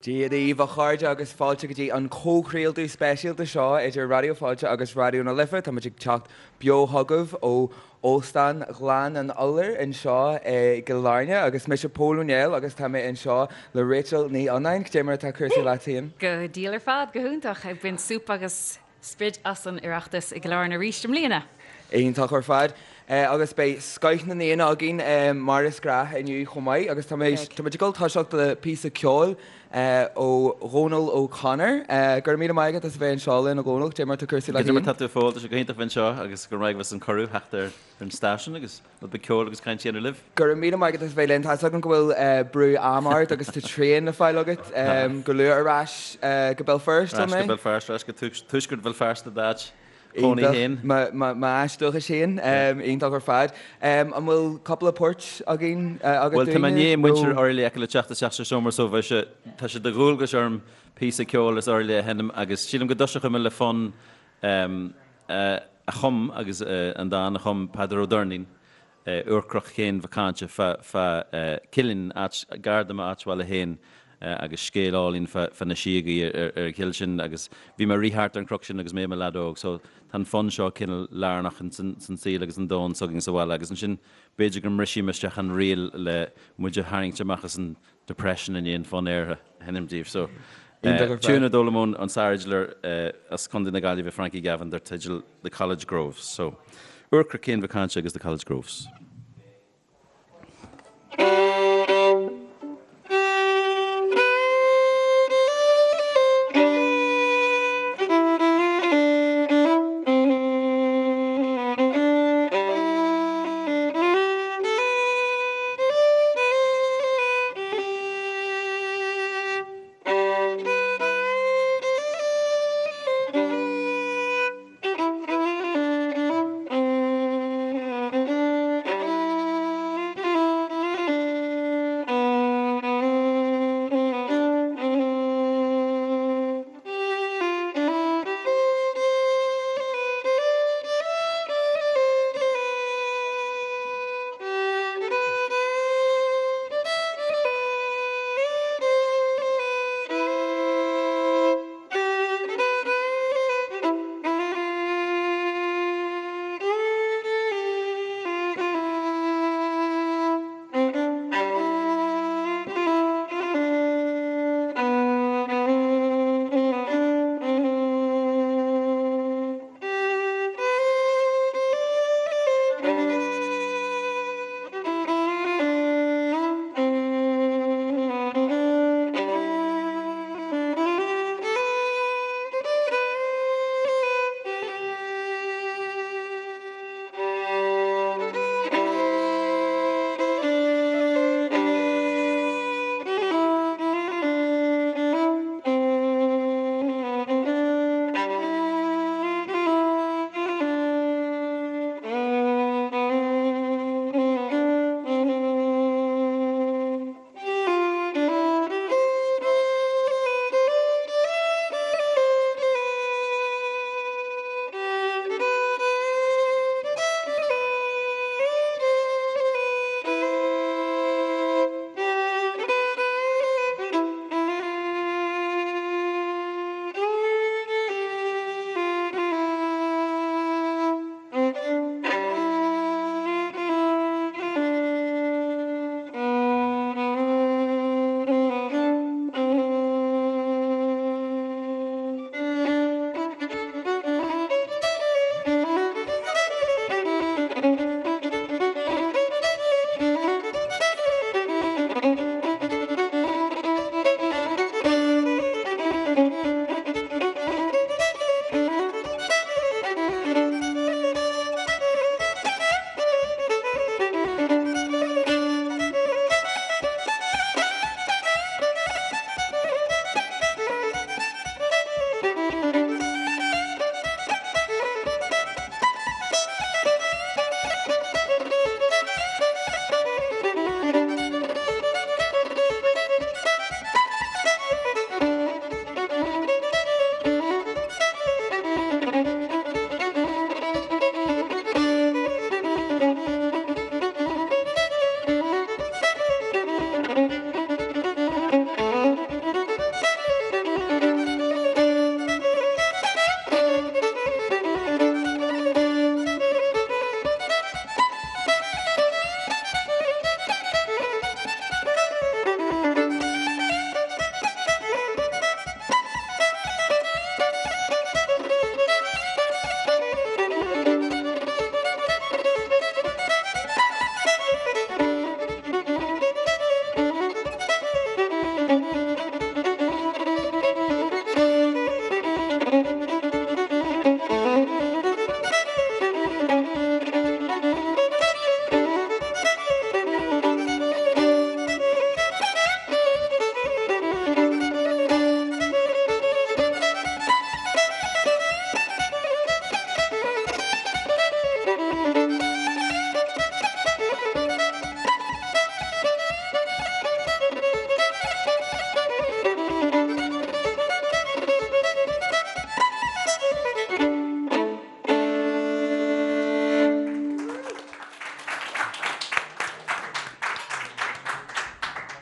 Dia daoibh, a chairde, agus fáilte go dtí an comhchraoladh speisialta seo idir Raidió Fáilte agus Raidió na Life. Táimid ag teacht beo chugaibh ó Óstán Ghleann an Iolair anseo i gCill Airne agus mise Pól Ó Néill agus tá mé anseo le Rachel Ní Fhionnáin. Cad é mar atá cúrsaí leat féin? Go diail ar fad, go hiontach. Ag baint súp agus sprid as an Oireachtas i gCill Airne arís i mbliana. Iontach ar fad. Agus beidh scoith na n-aíonna againn mar is gnách inniu chomh maith agus táimid ag dul toiseacht le píosa ceoil ó Dhónal O'Connor. Go raibh míle maith agat as a bheith anseo linn a Dhónaill. Cad é mar atá cúrsaí leat féin? Cad é mar atá tú a Phóil? Tá sé go hiontach bheith anseo agus go raibh maith agat as an cuireadh theacht ar an stáisiún agus rud beag ceoil agus caint a dhéanamh libh. Go raibh míle maith agat as a bheith linn. Tá 'fhios agam go bhfuil brú ama ort agus tá traein le fáil agat go luath ar ais go Béal Feirste, an é? Ar ais go Béal Feirste, ar ais go tuaisceart Bhéal Feirste d'áit chónaí féin. Iontach, m'áit dúchais féin, iontach ar fad. An bhfuil cúpla port againn agat Bhuel, tá mé i ndiaidh muintir Oirialla a fheiceáil ag teacht isteach sa seomra so bheidh sé, tá sé de dhualgas orm píosa ceoil as Oirialla a sheinm agus sílim go dtoiseochaidh mé le fonn a chum agus an dán a chum Peadar Ó Doirnín, Úrcroch Chéin Mhic Cáinte fá Cillín, áit gar do m'áit bhaile féin agus scéal álainn fá na síogaí ar an chill sin agus bhí mé ag rith thart ar an chnoc sin agus mé i mo leaid óg so tá an fonn seo cineál lárnach in san saol agus an domhan s'againn sa bhaile agus ansin b'fhéidir go mbrisfidh mé isteach an riail le muid a tharraingt amach as an depression i ndiaidh an fonn aortha a sheinm daoibh. So, tiún a d'fhoghlaim ón sárfhidléir as Contae na Gaillimhe Frankie Gavin dar teideal The College Groves. So, Úrcroch Chéin Mhic Cáinte agus The College Groves.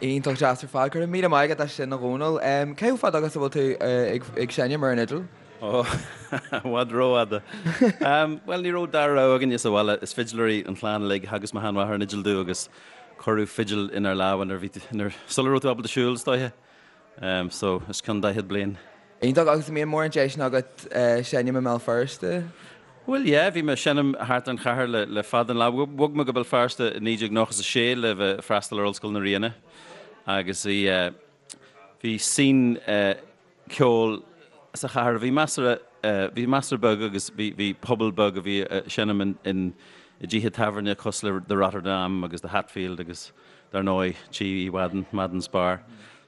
Iontach deas ar fad. Go raibh míle maith agat as sin a Dhónaill. Cé chomh fada agus a bhfuil tú ag seinm ar an fhidil? Ó, i bhfad rófhada. Bhuel, ní raibh dara rogha againne sa bhaile. Is fidléirí an chlann uilig. Theagasc mo sheanmháthair an fhidil domh agus cuireadh fidil inár lámha nuair a bhí, nuair, sula raibh tú ábalta siúl, is dóiche. So, os cionn 40 bliain. Iontach, agus an mbíonn mórán deiseanna agat seinm i mBéal Feirste? Bhuel, yeah, bhí mé ag seinm thart ar an chathair le, le fada an lá. Bhog mé go Béal Feirste i 1996 le bheith ag freastal ar Ollscoil na Ríona agus bhí, bhí scene ceoil sa chathair a bhí measartha, bhí measartha beag agus bhí, bhí pobal beag a bhí ag seinm in, in, i dtithe tábhairne cosúil le The Rotterdam agus The Hatfield agus dar ndóigh Tí Uí Mhadain, Madden's Bar.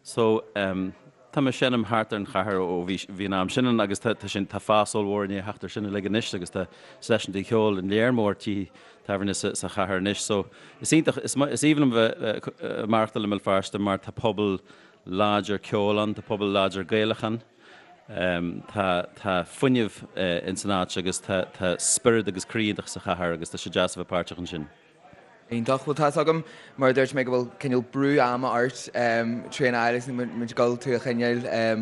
So, tá mé ag seinm thart ar an chathair ó bhí, bhí an am sin ann agus tá, tá sin, tá fás ollmhór i ndiaidh theacht ar sin uilig anois agus tá seisiúntaí ceoil in léar mór tithe tábhairne sa, sa chathair anois. So, is iontach, is, is aoibhinn liom bheith ag maireachtáil i mBéal Feirste mar tá pobal láidir ceoil ann, tá pobal láidir Gaelach ann, tá, tá fuinneamh ins an áit agus tá, tá spiorad agus croí iontach sa chathair agus tá sé deas a bheith páirteach ansin. Iontach. Bhuel, tá's agam, mar a dúirt mé, go bhfuil cineál brú ama ort trína fháil agus níl muid ag dul tú a choinneáil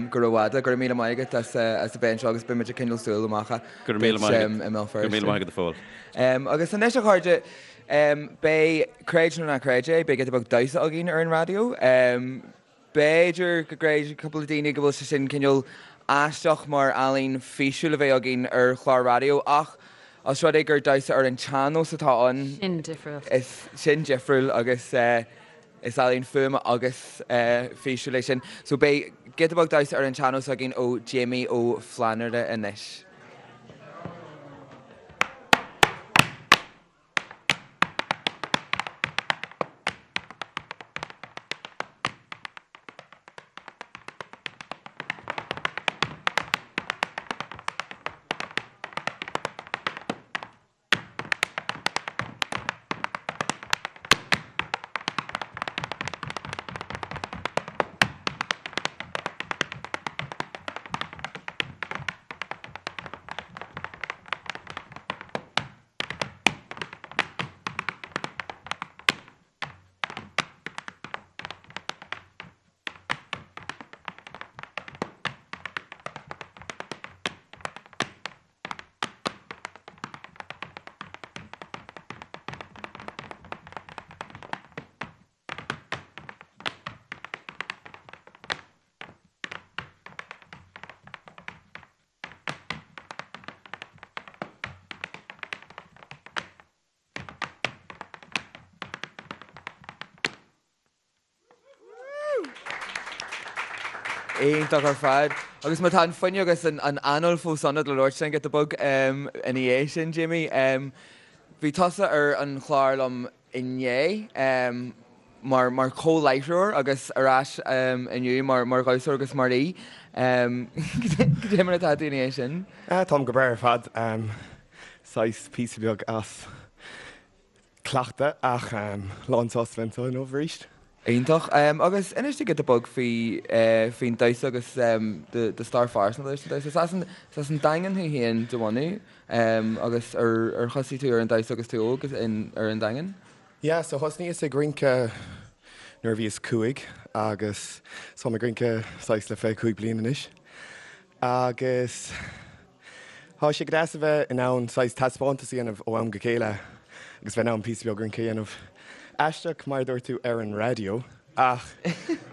go rófhada. Go raibh míle maith agat as a bheith anseo agus beidh muid ag coinneáil súil amach Go raibh míle maith agat. i mBéal Feirste. Go raibh míle maith agat a Phóil. Agus anois a chairde, beidh, creid nó ná creid é, beidh giota beag damhsa againn ar an raidió. B'fhéidir go gcreidfidh cúpla daoine go bhfuil sé sin cineál aisteach mar ealaín físiúil a bheith againn ar chlár raidió ach os rud é gur damhsa ar an tsean-nós atá ann, Sin difriúil. is sin difriúil agus is ealaín fuaime agus físiúil é sin. So beidh giota beag damhsa ar an tsean-nós againn ó Jamie Ó Flannúra anois. Iontach ar fad. Agus má tá an fuinneamh agus an anáil fós ionat le labhairt linn giota beag ina dhiaidh sin, Jamie, bhí tusa ar an chlár liom inné mar mar chomhláithreoir agus ar ais inniu mar mar dhamhsóir agus mar aoi. Cad é mar atá tú ina dhiaidh sin? Táim go breá ar fad. Saghas píosa beag as cleachtadh ach lán sásta bheith anseo inniu arís. Iontach. Agus inis dúinn giota beag faoi faoin damhsa agus do stair phearsanta leis an damhsa. Is as an is as an Daingean thú féin de bhunadh. Agus ar ar thosaigh tú ar an damhsa agus tú óg in ar an Daingean? Yeah, so thosnaíos ag rince nuair a bhíos 5 agus táim ag rince saghas le 25 bliain anois. Agus tá sé go deas a bheith in ann saghas taispeántas a dhéanamh ó am go chéile agus bheith in ann píosa beag rince a dhéanamh. Aisteach mar a dúirt tú ar an raidió ach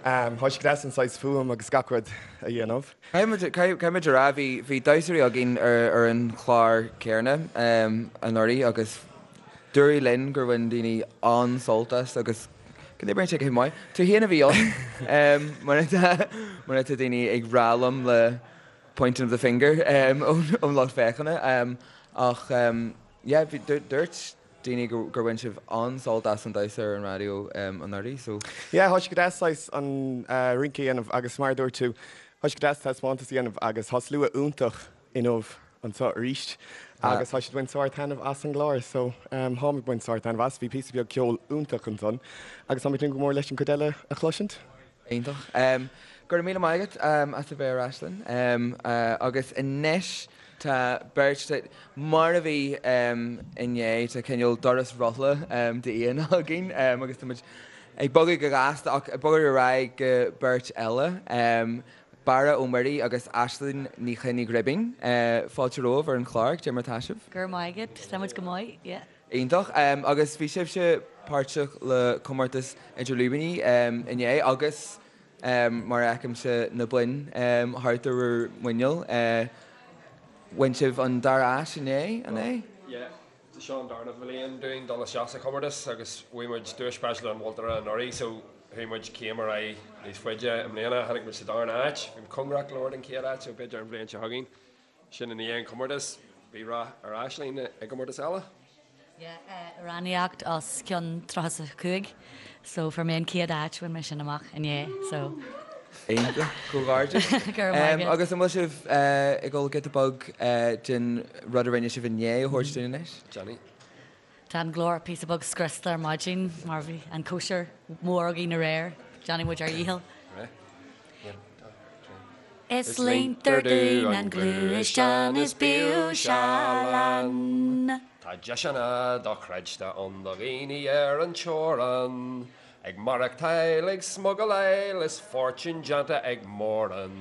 tá sé go deas an saghas fuaim agus gach rud a dhéanamh. Caithfidh muid a rá, bhí bhí damhsóirí againn ar ar an chlár céanna anuraidh agus dúradh linn gur bhain daoine an-sult as agus go n-oibríonn sé go maith. Tú féin a bhí ann mar atá mar atá daoine ag rá liom le pointing of the finger ón lucht féachana ach yeah bhí dúirt daoine gur bhain sibh an-sult as an damhsa ar an raidió anuraidh so. Yeah tá sé go deas saghas an rince a dhéanamh agus mar a dúirt tú tá sé go deas taispeántas a dhéanamh agus tá slua iontach inniu anseo arís agus tá siad ag baint sár-taitneamh as an gclár so táim ag baint sár-taitneamh as. Bhí píosa beag ceoil iontach ansan agus táim ag tnúth go mór leis an chuid eile a chloisint. Iontach. Go raibh míle maith agat as a bheith ar ais linn. Agus anois tá beirt, mar a bhí inné, tá cineál doras rothla d'aíonna againn agus tá muid. Ag bogadh go gasta ach ag bogadh ar aghaidh go beirt eile, Barra Ó Muirí agus Aisling Ní Choinnigh Ghribín. Fáilte romhaibh ar an chlár, cad é mar atá sibh? Go raibh maith agat, tá muid go maith, yeah. Iontach. Agus bhí sibhse páirteach le comórtas Idir Lúibíní inné agus mar a fheicimse na boinn thart ar bhur muineál, bhain sibh an dara áit inné, an ea? Yeah. Seo an darna bhliain dúinn dul isteach sa chomórtas agus bhuaigh muid duais speisialta an mholtóra anuraidh so chuaigh muid céim ar aghaidh níos faide i mbliana. Tháinig muid sa darna áit. Bhí muid cóngarach go leor don chéad áit so b'fhéidir an bhliain seo chugainn. Sin i ndiaidh an chomórtais. Bhí rath ar Aisling i gcomórtas eile. Yeah, amhránaíocht os cionn 35 so fuair mé an chéad áit, bhain mé sin amach inné so. Iontach, comhghairdeas. Go raibh maith agat. Agus an bhfuil sibh ag dul giota beag den rud a rinne sibh inné a thabhairt dúinn anois? Johnny. Tá an glór píosa beag scriosta ar maidin mar bhí an cóisir mhór againn aréir. Déanfaidh muid ár dhícheall. Is líontar dúinn an gluaisteán is bíodh seal ann. Tá deiseanna dochreidte ann do dhaoine ar an teorainn. Ag maireachtáil, ag smugaláil is fortún déanta ag mórán.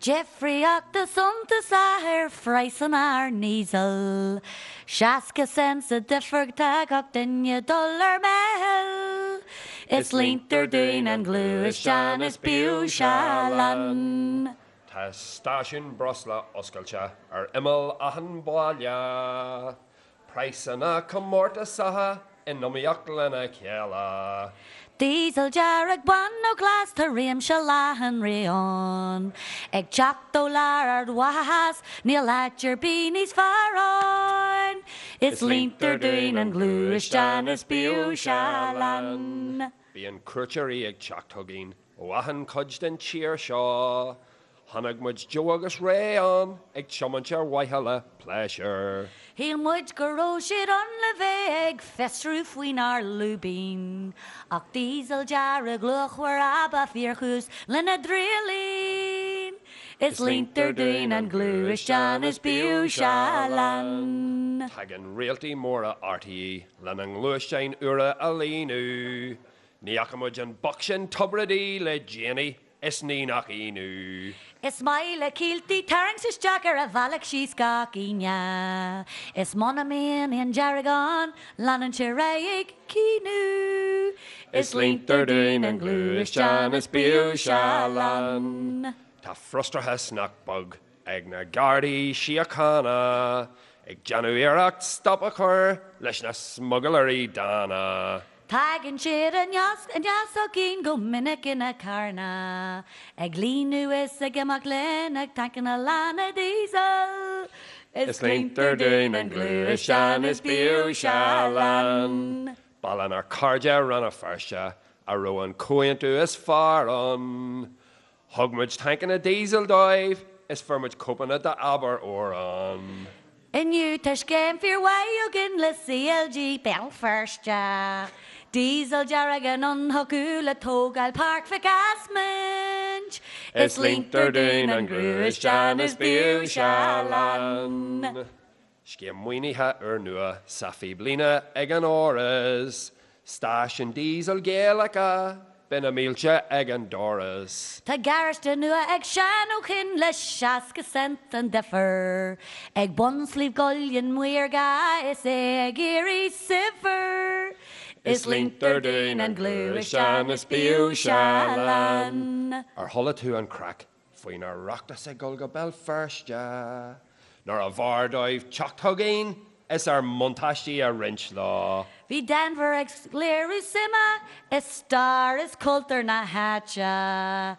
Difríocht suntasach ar phraghsanna ár ndíosal. 60 cent sa difear tá gach duine dul ar meitheal. Is líontar dúinn an gluaisteán is bíodh seal ann. Tá stáisiún breosla oscailte ar imeall achan bhaile. Praghsanna comórtasacha in iomaíocht lena chéile. Díosal dearg, bán nó glas, tá réimse leathan raon. Ag teacht ó lár Ard Mhacha Theas, níl áit ar bith níos fearr ann. Is líontar dúinn an gluaisteán is bíodh seal ann. Bíonn cuairteoirí ag teacht chugainn ó achan chuid den tír seo. Chonaic muid Joe agus Ray ann ag tiomáint ar mhaithe le pléisiúr. Shíl muid go raibh siad ann le bheith ag fiosrú faoinár lúibín, ach díosal dearg luachmhar ab ea fíorchúis lena dtriallín. Is líontar dúinn an gluaisteán is bíodh seal ann. Tagann réaltaí móra RTÉ lena ngluaisteáin úra a líonadh. Ní fhaca muid an boc sin Tubridy le déanaí is ní nach ionadh. Is maith le Kielty tarraingt isteach ar a bhealach síos gach Aoine. Is muna mbíonn aon dearg ann, leanann sé ar aghaidh ag caoineadh. Is líontar dúinn an gluaisteán is bíodh seal ann. Tá frustrachas nach beag ag na Gardaí Síochána, ag déanamh iarracht stop a chur leis na smugailrí dána. Tagann siad aneas chugainn go minic ina carranna, ag líonadh is ag imeacht linn ag tancanna lána díosail. Is líontar dúinn an gluaisteán is bíodh seal ann. Ba lenár cairde Rann na Feirste a raibh an comhaontú is fearr ann. Thug muid tancanna díosail dóibh is fuair muid cóipeanna d'Abair Amhrán. Inniu tá scéim fíormhaith againn le CLG Béal Feirste. Díosal dearg anonn chucu le tógáil Páirc Mhic Easmaint. Is líontar dúinn an gluaisteán is bíodh seal ann. Scéim maoinithe úrnua sa phíblíne ag an Áras. Stáisiún díosail Gaelacha, beidh na mílte ag an doras. Tá garáiste nua ag Seán Ó Coinn le 60 cent an difear. Ag bun Sliabh gCuillinn maorga is é ag éirí saibhir. Is líontar dúinn an gluaisteán is bíodh seal ann. Ar chuala tú an craic faoin Oireachtas ag dul go Béal Feirste, nárbh fhearr dóibh teacht chugainn is ár mbuntáistí a roinnt leo. Bhí Denvir ag léiriú suime i stair is cultúr na háite,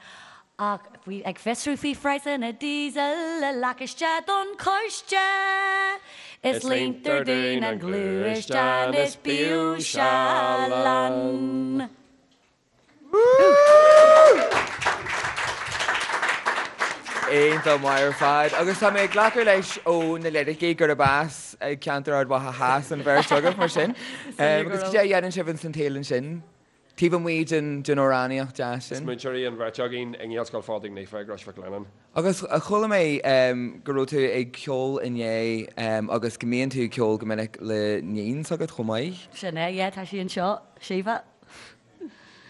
ach bhí ag fiosrú faoi phraghsanna díosail le lacáiste don choiste. Is líontar dúinn an gluaisteán is bíodh seal ann. Iontach maith ar fad. Agus tá mé ag glacadh leis ó na liricí gurb as ceantar Ard Mhacha Theas an bheirt agaibh mar sin. Agus cad é a dhéanann sibh ins an tsaol ansin? Taobh amuigh den amhránaíocht deas sin? Is múinteoirí an bheirt againn i nGaelscoil Phádraig Naofa i gCrois Mhic Lionnáin. Agus chuala mé go raibh tú ag ceol inné agus go mbíonn tú ag ceol go minic le níon s'agat chomh maith? Sin é, yeah, tá sí anseo, Síomha.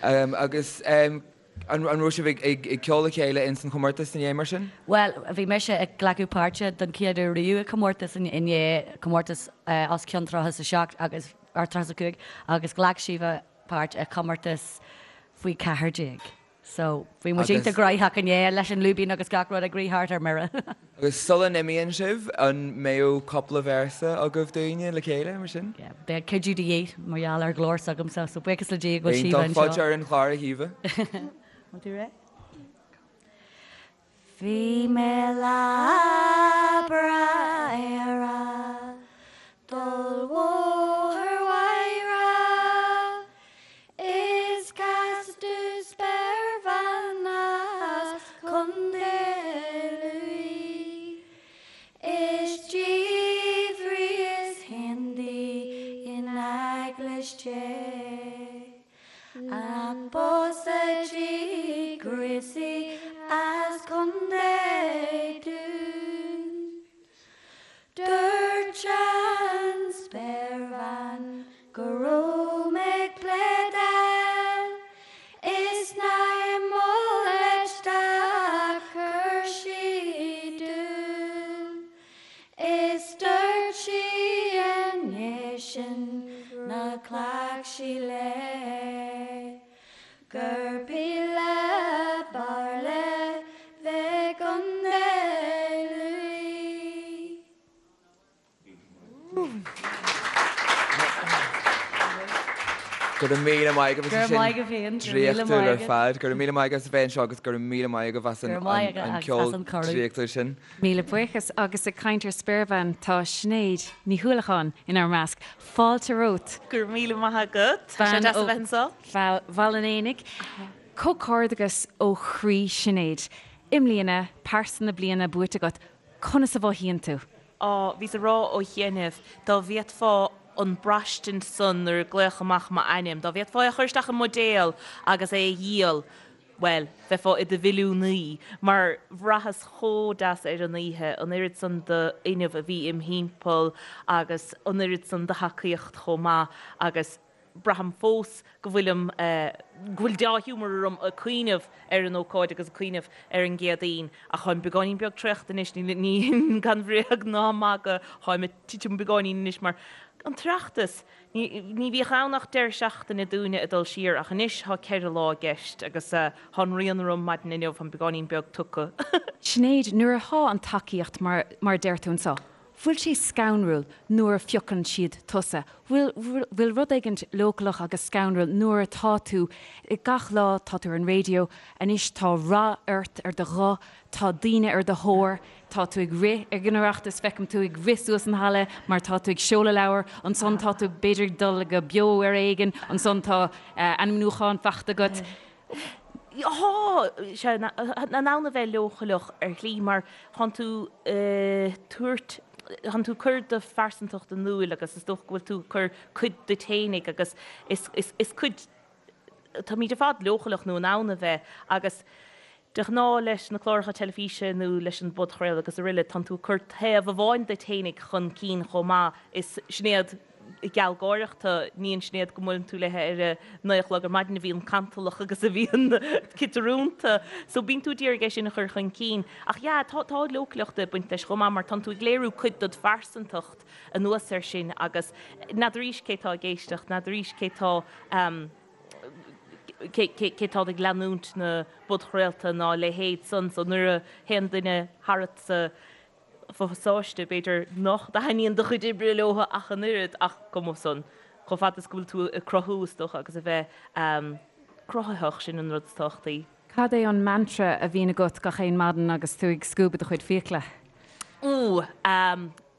Agus an raibh sibh ag ceol le chéile ins an chomórtas inné mar sin? Bhuel, bhí mise ag glacadh páirte don chéad uair riamh i comórtas inné, comórtas os cionn 37 agus, or 35, agus ghlac Síomha páirt i chomórtas faoi 14. So, bhí muid iontach gnóthach inné leis an lúibín agus gach rud ag rith thart ar mire. Agus sula n-imíonn sibh, an mbeadh cúpla véarsa agaibh dúinne le chéile, mar sin? Yeah, beidh cuidiú de dhíth mar gheall ar ghlór s'agamsa, so buíochas le Dia go bhfuil Síomha anseo. Iontach, fáilte ar an chlár a Shíomha. Bhfuil tú réidh? Bhí mé lá breá ar a' dul bhóthar Mhaigh Rath Is casadh domh spéirbhean as Contae Lú Is d'fhiafraíos féin di in eaglais Dé An bpósfadh sí gríosaí as Contae Dún? Dúirt an spéirbhean go raibh mé ag pléadáil is nár mhol leis dá chuir sí dúil. Is dúirt sí i ndiaidh sin nár ghlac sí léi gurb í le b'fhearr léi bheith i gContae Lú. Go raibh míle maith agaibh as sin draíochtúil ar fad. Go raibh míle maith agaibh as a bheith anseo agus go raibh míle maith agaibh as an ceol draíochtúil sin. Míle buíochas. Agus ag caint ar spéirbhean, tá Sinéad Ní Uallacháin inár measc. Fáilte romhat. Go raibh míle maith agat. Tá sé deas a bheith anseo. Bean ó Bhaile an Éanaigh. Comhghairdeachas ó chroí Sinéad. I mbliana, Pearsa na Bliana buaite agat. Conas a mhothaíonn tú? Á, bhíos ag rá ó chianaibh, dá bhféadfá an braistint san nuair a glaodh amach m'ainm, dá bhféadfá é a chur isteach i mbuidéal agus é a dhíol, bhuel, bheifeá i do mhilliúnaí, mar bhraitheas chomh deas ar an oíche, an oiread san d'fhuinneamh a bhí im thimpeall agus an oiread san de thacaíocht chomh maith agus braithim fós go bhfuilim, go bhfuil deá-ghiúmar orm ag cuimhneamh ar an ócáid agus ag cuimhneamh ar an gCéadaoin. Ach táim beagáinín beag traochta anois, ní, gan bhréag ná magadh, táim ag titim beagáinín anois mar an tOireachtas, ní, ní bhíodh ann ach deireadh seachtaine dúinne ag dul siar ach anois tá 4 lá i gceist agus tá an rian orm maidin inniu, táim beagáinín beag tugtha. Sinéad, nuair atá an tacaíocht mar, mar a deir tú anseo, Bhfuil sé scanrúil nuair a phiocann siad tusa? Bhfuil, bhfuil rud éigint leochaileach agus scanrúil nuair atá tú, gach lá tá tú ar an raidió, anois tá rath ort ar do ghuth, tá daoine ar do thóir, tá tú ag rith ag an Oireachtas, feicim tú ag rith suas an halla mar tá tú ag seoladh leabhar, ansan tá tú b'fhéidir ag dul go beo ar éigean, ansan tá ainmniúchán faighte agat. Tá sé in ann a bheith leochaileach ar shlí mar tánn tú ag tabhairt, tánn tú ag cur do phearsantacht in iúl agus is dócha go bhfuil tú ag cur cuid duit fhéinig agus is cuid, táimid ar fad leochaileach nó in ann a bheith agus de ghnáth leis na cláracha teilifíse nó leis an bpodchraoladh agus aroile tánn tú ag cur taobh amháin duit fhéinig chun cinn chomh maith is Sinéad gealgháireach tú, ní an Sinéad go mbuaileann tú léi ar a naoi a chlog ar maidin a bhíonn cantalach agus a bhíonn ciotrúnta. So bíonn tú ag iarraidh é sin a chur chun cinn. Ach yeah, tá tá leochaileacht ag baint leis chomh maith mar tánn tú ag léiriú cuid dod phearsantacht anuas air sin agus n'fheadaraís cé tá ag éisteacht, n'fheadaraís cé tá cé cé tá ag leanúint na bpodchraolta ná a leithéid san. So nuair a théann duine tharat sa phasáiste, b'fhéidir nach dtaitníonn do chuid oibre leo ach an oiread, ach cuma san, chomh fada is go bhfuil tú ag cruthú, is dócha, agus a bheith cruthaitheach, sin an rud is tábhachtaí. Cad é an mantra a bhíonn agat gach aon maidin agus tú ag scuabadh do chuid fiacla? Úúú,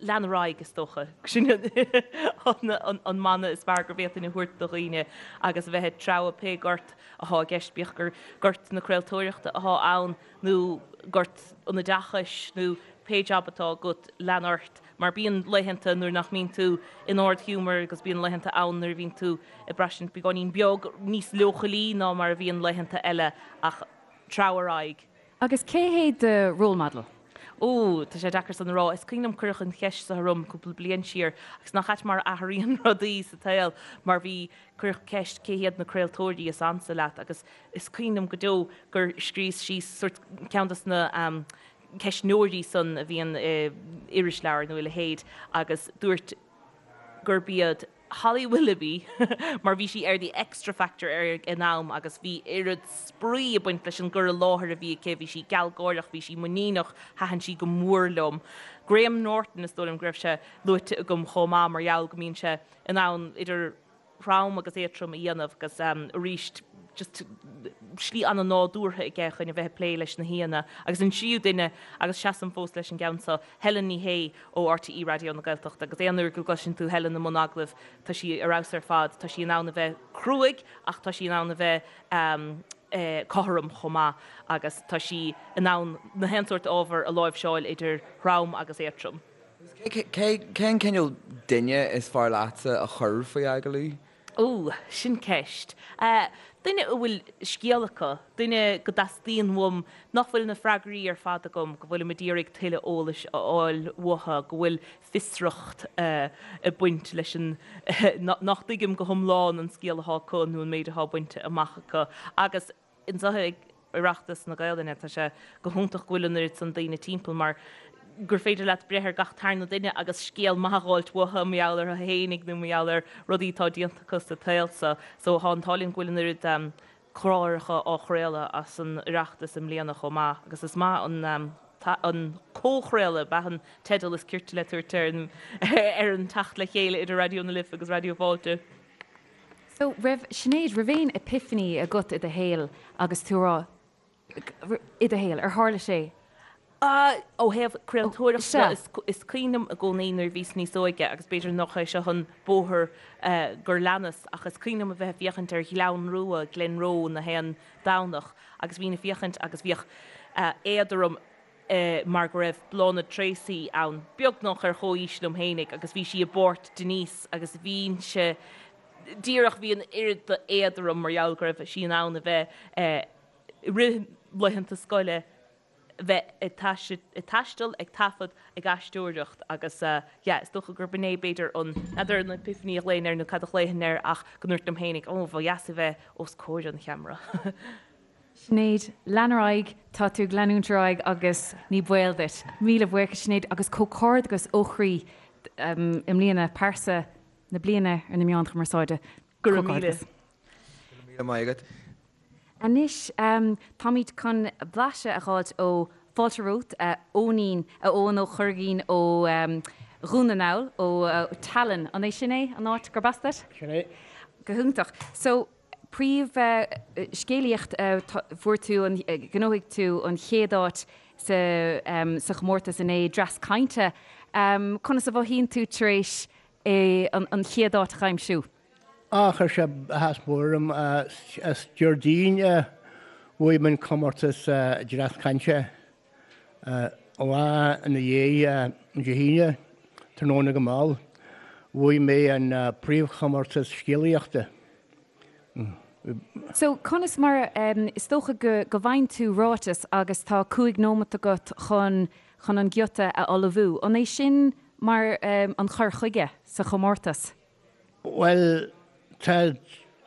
lean ar aghaidh, is dócha. Sin an mana is fearr go bhféadfainn a thabhairt do dhaoine agus a bheith ag treabhadh pé gort athá i gceist, bíodh gur gort na craoltóireachta athá ann nó gort an oideachais nó pé jab atá agat, lean ort mar bíonn laethanta nuair nach mbíonn tú in ard-ghiúmar agus bíonn laethanta ann nuair a bhíonn tú ag braistint beagáinín beag níos leochailí ná mar a bhíonn laethanta eile ach treabh ar aghaidh. Agus cé hé do role model? Ó, tá sé deacair san a rá. Is cuimhin liom cuireadh an cheist seo orm cúpla bliain siar agus nach ait mar a athraíonn rudaí sa tsaol mar bhí, cuireadh ceist cé hiad na craoltóirí is ansa leat agus is cuimhin liom go deo gur scríos síos sórt ceann dos na ceistneoirí san a bhíonn i irisleabhar nó a leithéid agus dúirt gurb iad Holly Willoughby mar bhí sí ar The Xtra Factor ag an am agus bhí oiread spraoi ag baint leis an gcur i láthair a bhí aici, bhí sí gealgháireach, bhí sí muiníneach, thaitin sí go mór liom. Graham Norton is dóigh liom go raibh sé luaite agam chomh maith mar gheall go mbíonn sé in ann idir throm agus éadtrom a dhéanamh agus arís just slí an-nádúrtha aige chun a bheith ag plé leis na haíonna. Agus an tríú duine, agus seasaim fós leis an gceann seo, Helen Ní Shé ó RTÉ Raidió na Gaeltachta agus aon uair go gcloiseann tú Helen i mbun agallaimh tá sí ar fheabhas ar fad, tá sí in ann a bheith cruaidh ach tá sí in ann a bheith cothrom chomh maith agus tá sí in ann na haon sórt ábhar a láimhseáil idir throm agus éadtrom. Cén cineál duine is fearr leatsa a chur faoi agallamh? Ó, sin ceist. Duine a bhfuil scéal acu, duine go dteastaíonn uaim, nach bhfuil na freagraí ar fad agam, go bhfuilim ag iarraidh tuilleadh eolais a fháil uathu, go bhfuil fiosracht ag baint leis an, nach dtuigim go hiomlán an scéal atá acu nó an méid atá bainte amach acu. Agus. Anseo ag Oireachtas na Gaelainne, tá sé go hiontach go bhfuil an oiread san daoine timpeall mar gur féidir leat breith ar gach tarna duine agus scéal maith a dh'fháilt uathu mar gheall orthu fhéinig nó mar gheall ar rudaí atá déanta acu sa tsaol so. So tá an t-ádh linn go bhfuil an oiread cláracha á chraoladh as an Oireachtas i mbliana chomh maith agus is maith an an comhchraoladh ab ea an teideal is cirte le tabhairt ar an ar an teacht le chéile idir Raidió na Life agus Raidió Fáilte. So, raibh, Sinéad, raibh aon epiphany agat i do shaol agus tú a rá, i do shaol, ar tharla sé? Ó thaobh craoltóireachta de, is cuimhin liom i gcónaí nuair a bhíos níos óige, agus b'fhéidir nach é seo an bóthar gur leanas, ach is cuimhin liom a bheith ag féachaint ar Ghleann Rua, Glenroe, na haon Domhnach, agus bhínn ag féachaint agus bhíodh éad orm, mar go raibh Bláthnaid Treacy ann, beagnach ar chomhaois liom fhéinig, agus bhí sí i bpáirt Denise agus bhínnse díreach, bhí an oiread d'éad orm mar gheall go raibh sí in ann a bheith i rith laethanta scoile, bheith ag taisteal, ag taifead, ag aisteoireacht agus yeah, is dócha gurb in é b'fhéidir an, n'fheadar an epiphany a ghlaofainn air nó cad a ghlaofainn air ach go ndúirt liom fhéinig, oh, ba dheas a bheith os comhair an cheamara. Sinéad, lean ar aghaidh, tá tú ag leanúint ar aghaidh agus ní baol duit. Míle buíochas Sinéad agus comhghairdeachas ó chroí i mbliana, pearsa na bliana ar na meáin chumarsáide. Go raibh míle. Go raibh míle maith agat. Anois táimid chun blaiseadh a dh'fháilt ó Fáilte romhat, a Eoinín, a Eoin Ó Curraighín ó Dhún na nGall, ó Teileann. An é sin é an áit gurb as duit? Sin é. Go hiontach. So, Príomh-scéalaíocht, Fuair tú an, ghnóthaigh tú an chéad áit sa sa chomórtas inné, Dreas Cainte. Conas a mhothaíonn tú tar éis an chéad áit a aimsiú? Á, chuir sé áthas mór orm. Is Déardaoin a bhuaigh mé an comórtas Dreas Cainte. An lá ina dhiaidh, Dé hAoine, tráthnóna go mall, bhuaigh mé an príomhchomórtas scéalaíochta. So, conas mar, is dócha go go bhfaigheann tú ráiteas agus tá 5 nóimeat agat chun chun an giota a ullmhú. An é sin mar an cur chuige sa chomórtas? Bhuel, tá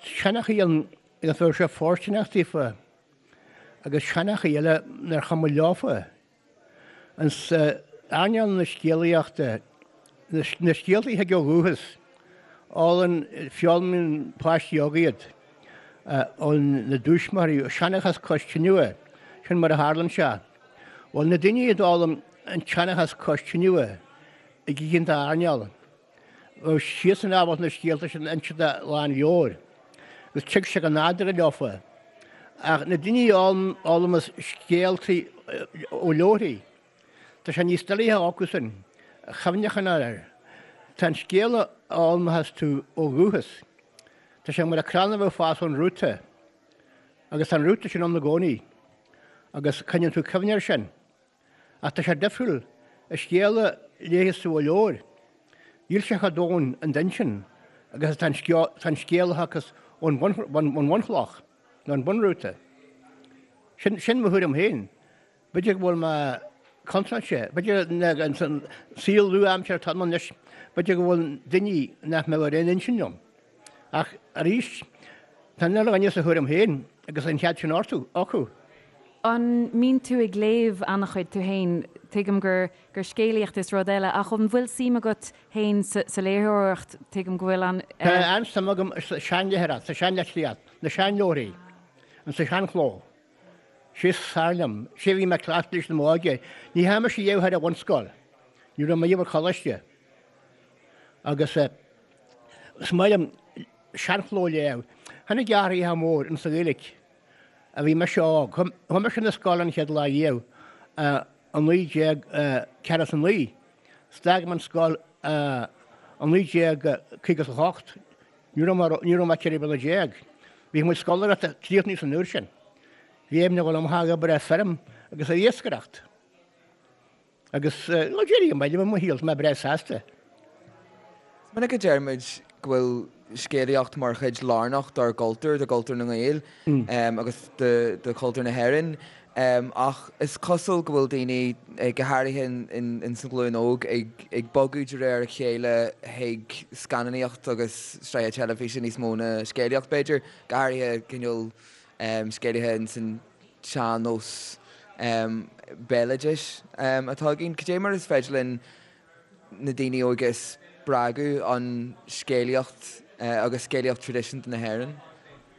seanchaí ann agus bheadh sé fóirsteanach daofa. agus seanchaí eile nár chuma leofa. Ins earnáil na scéalaíochta, na scéalta a thig ó dhúchas, fhoghlaim, foghlaimíonn páistí óga iad ó na dtuismitheoirí, seanchas cois tineadh, sin mar a tharlann sé. Bhuel, na daoine a d'fhoghlaim an tseanchas cois tineadh ag oícheanta airneáil, Bheadh siadsan ábalta na scéalta sin a inse lán leabhair agus tig sé go nádúrtha leofa. Ach na daoine a fhoghlaimeas scéaltaí ó leabharthaí, tá sé níos doilighe acusan cuimhneachán air. Tá an scéal a fhoghlaimeochas tú ó dhúchas, tá sé mar an crann a bheadh ag fás ón rúta agus tá an rúta sin ann i gcónaí agus coinníonn tú cuimhne air sin. Ach tá sé difriúil, an scéal a léifeas tú ó leabhar, níl sé chomh domhain in d'intinn agus atá an scéal a thiocfas ón bhunchloch, nó an bunrúta. Sin, sin mo thuairim féin. B'fhéidir go bhfuil mé. contráilte. B'fhéidir san saol nua-aimseartha atá ann anois, b'fhéidir go bhfuil daoine nach mbeadh ar aon intinn liom. Ach arís, tá an uile dhuine sa thuairim féin agus an cead sin orthu, acu. An mbíonn tú ag léamh an-chuid tú féin? Tuigim gur gur scéalaíocht is rud eile, ach an bhfuil suim agat féin sa léitheoireacht? Tuigim go bhfuil an. Tá an-suim agam sa seanléitheoireacht, sa seanlitríocht, na seanleabharthaí, an sa seanchló. Sé is fearr liom. Sé a bhí mé cleachta leis i m'óige. Ní theachaigh mise riamh thar an bhunscoil. Ní raibh mé riamh ar choláiste. Agus is maith liom seanchló a léamh. Tháinig athruithe mór insa Ghaeilge a bhí mise óg. Chuaigh mise 'na scoile an chéad lá riamh i 1949. 'S d'fhág mé an scoil i 1958. Ní raibh mé ní raibh mé 14 bliana. Bhí mo chuid scoláireachta críochnaithe san uair sin. Bhí aimn a dhul amach ag obair ar feirm agus ag iascaireacht. Agus bhuel d'éirigh go maith liom i mo shaol, tá mé breá sásta. Is minic a deir muid go bhfuil scéalaíocht mar chuid lárnach dár gcultúr, de chultúr na nGael agus de chultúr na hÉireann. Ach is cosúil go bhfuil daoine, go háirithe ins an ghlúin óg, ag bogadh de réir a chéile chuig scannánaíocht agus sraithe teilifíse níos mó ná scéalaíocht, b'fhéidir, go háirithe cineál scéalaithe ins an tsean-nós béaloidis atá againn. Cad é mar is féidir linn na daoine óga a spreagadh an scéalaíocht agus scéalaíocht traidisiúnta na hÉireann?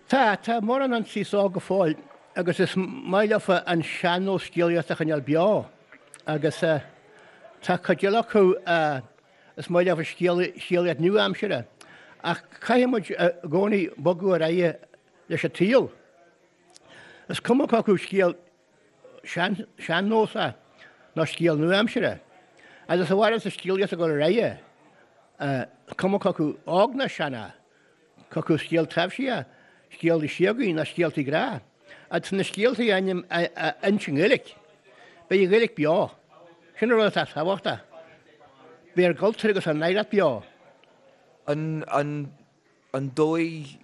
Tá, tá mórán an saghas óg go fóill agus is maith leofa an sean-nós scéalaíochta a choinneáil beo agus tá cuid eile acu is maith leofa scéalaíocht nua-aimseartha ach caithfidh muid i gcónaí bogadh ar aghaidh leis an tsaol. Is cuma cé acu scéal sean-nósach nó scéal nua-aimseartha. Agus a mhaireann sa scéalaíocht ag dul ar aghaidh, is cuma cé acu óg nó sean é, cé acu scéal taibhsí é, scéaltaí síogaí nó scéaltaí grá. Agus na scéaltaí a inse i nGaeilge, beidh an Ghaeilge beo. Sin an rud atá tábhachtach. Beidh ár gcultúr agus ár n-oidhreacht beo. An dóigh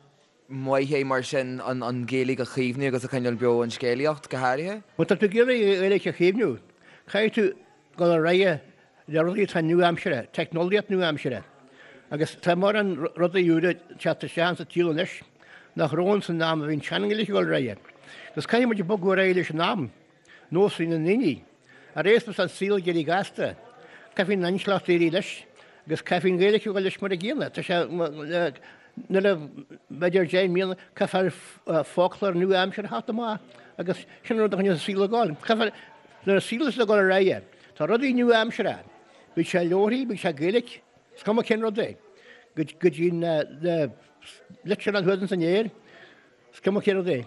maith é mar sin an Ghaeilge a chaomhnú agus a choinneáil beo, an scéalaíocht go háirithe? Má tá tú ag iarraidh an Ghaeilge a chaomhnú, caithfidh tú dul ar aghaidh le rudaí atá nua-aimseartha, teicneolaíocht nua-aimseartha. Agus tá mórán rudaí úra ag teacht isteach insa tsaol anois nach raibh ann san am a bhí an tsean-Ghaeilge ag dul ar aghaidh. Agus caithfidh muid bogadh ar aghaidh leis an am. Nósanna na ndaoine. Arae is an saol ag éirí gasta, caithfidh an intleacht éirí leis agus caithfidh an Ghaeilge a dhul leis mar a gcéanna. Tá sé, nuair a, b'fhéidir 10 mbliana, caithfear foclóir nua-aimseartha a theacht amach agus sin an rud a choinneos an saol ag dul. Caithfear, nuair an saol is ag dul ar aghaidh, tá rudaí nua-aimseartha, bíodh sé leabharthaí, bíodh sé Gaeilge, is cuma cén rud é, go dtí na litreanna thuas ins an aer, is cuma cén rud é.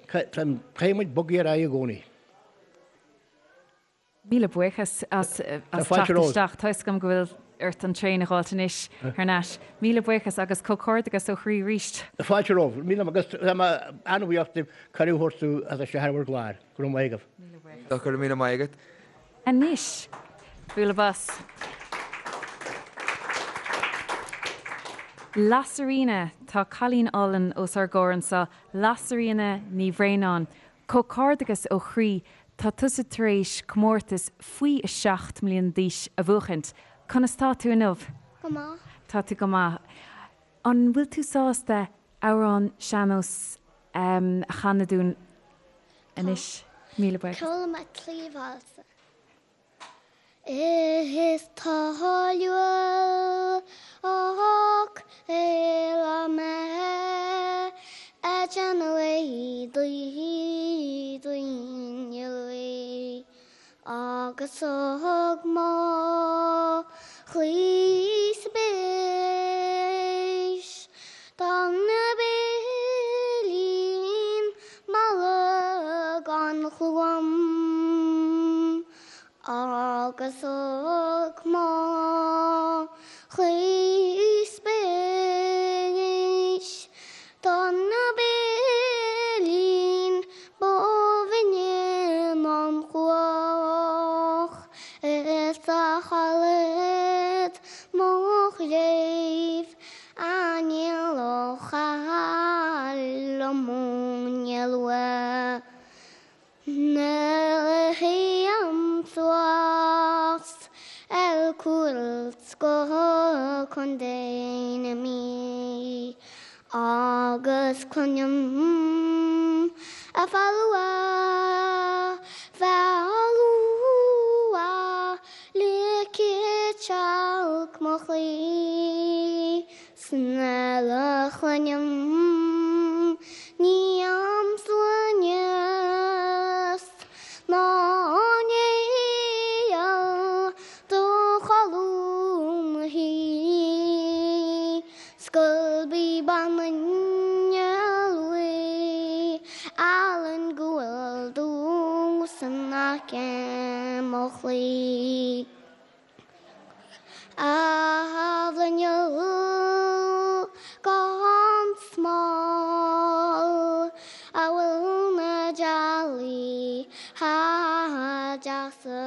Caithfidh muid bogadh ar aghaidh i gcónaí. Míle buíochas as teacht isteach. Tá 'fhios agam go bhfuil ort an traein a dh'fháilt anois thar n-ais. Míle buíochas agus comhghairdeachas ó chroí arís. Fáilte romhaibh. Míle agus tá mé an-bhuíoch daoibh cuireadh a thabhairt domh a theacht isteach ar bhur gclár. Go raibh maith agaibh. Míle buíochas. Go raibh míle maith agat. Anois, bualadh bos. Lasairfhíona, tá cailín álainn os ár gcomhair anseo, Lasairfhíona Ní Bhraonáin. Comhghairdeachas ó chroí, tá tusa tar éis comórtas faoi 7 mbliana d'aois a bhuachaint. Conas tá tú inniu? Go maith. Tá tú go maith. An bhfuil tú sásta amhrán sean-nós a chanadh dúinn anois? Míle buíochas. Chuala mé cliabhálsa. Is toiliúil ach eile mé a déanamh daoine agus thug mo chroí spéis don bpillín malla gan chluaim agus thug mo chroí spéis don bpillín ba bhinne an chuach is a chaillead mo chléibh aniar ó chailleadh mo luath. Nuair a théim suas. 's go Contae na Mí agus cluinim a foghlua, foghlua le citeach mo chroí 's nuair a chluinim ní am sloinne 's ná néal do Cholm Shuí 's gurb í bean an Iarla álainn go bhfuil dús in aice mo chroí. A bhruinneall gan smál a bhfuil na dealaí deasa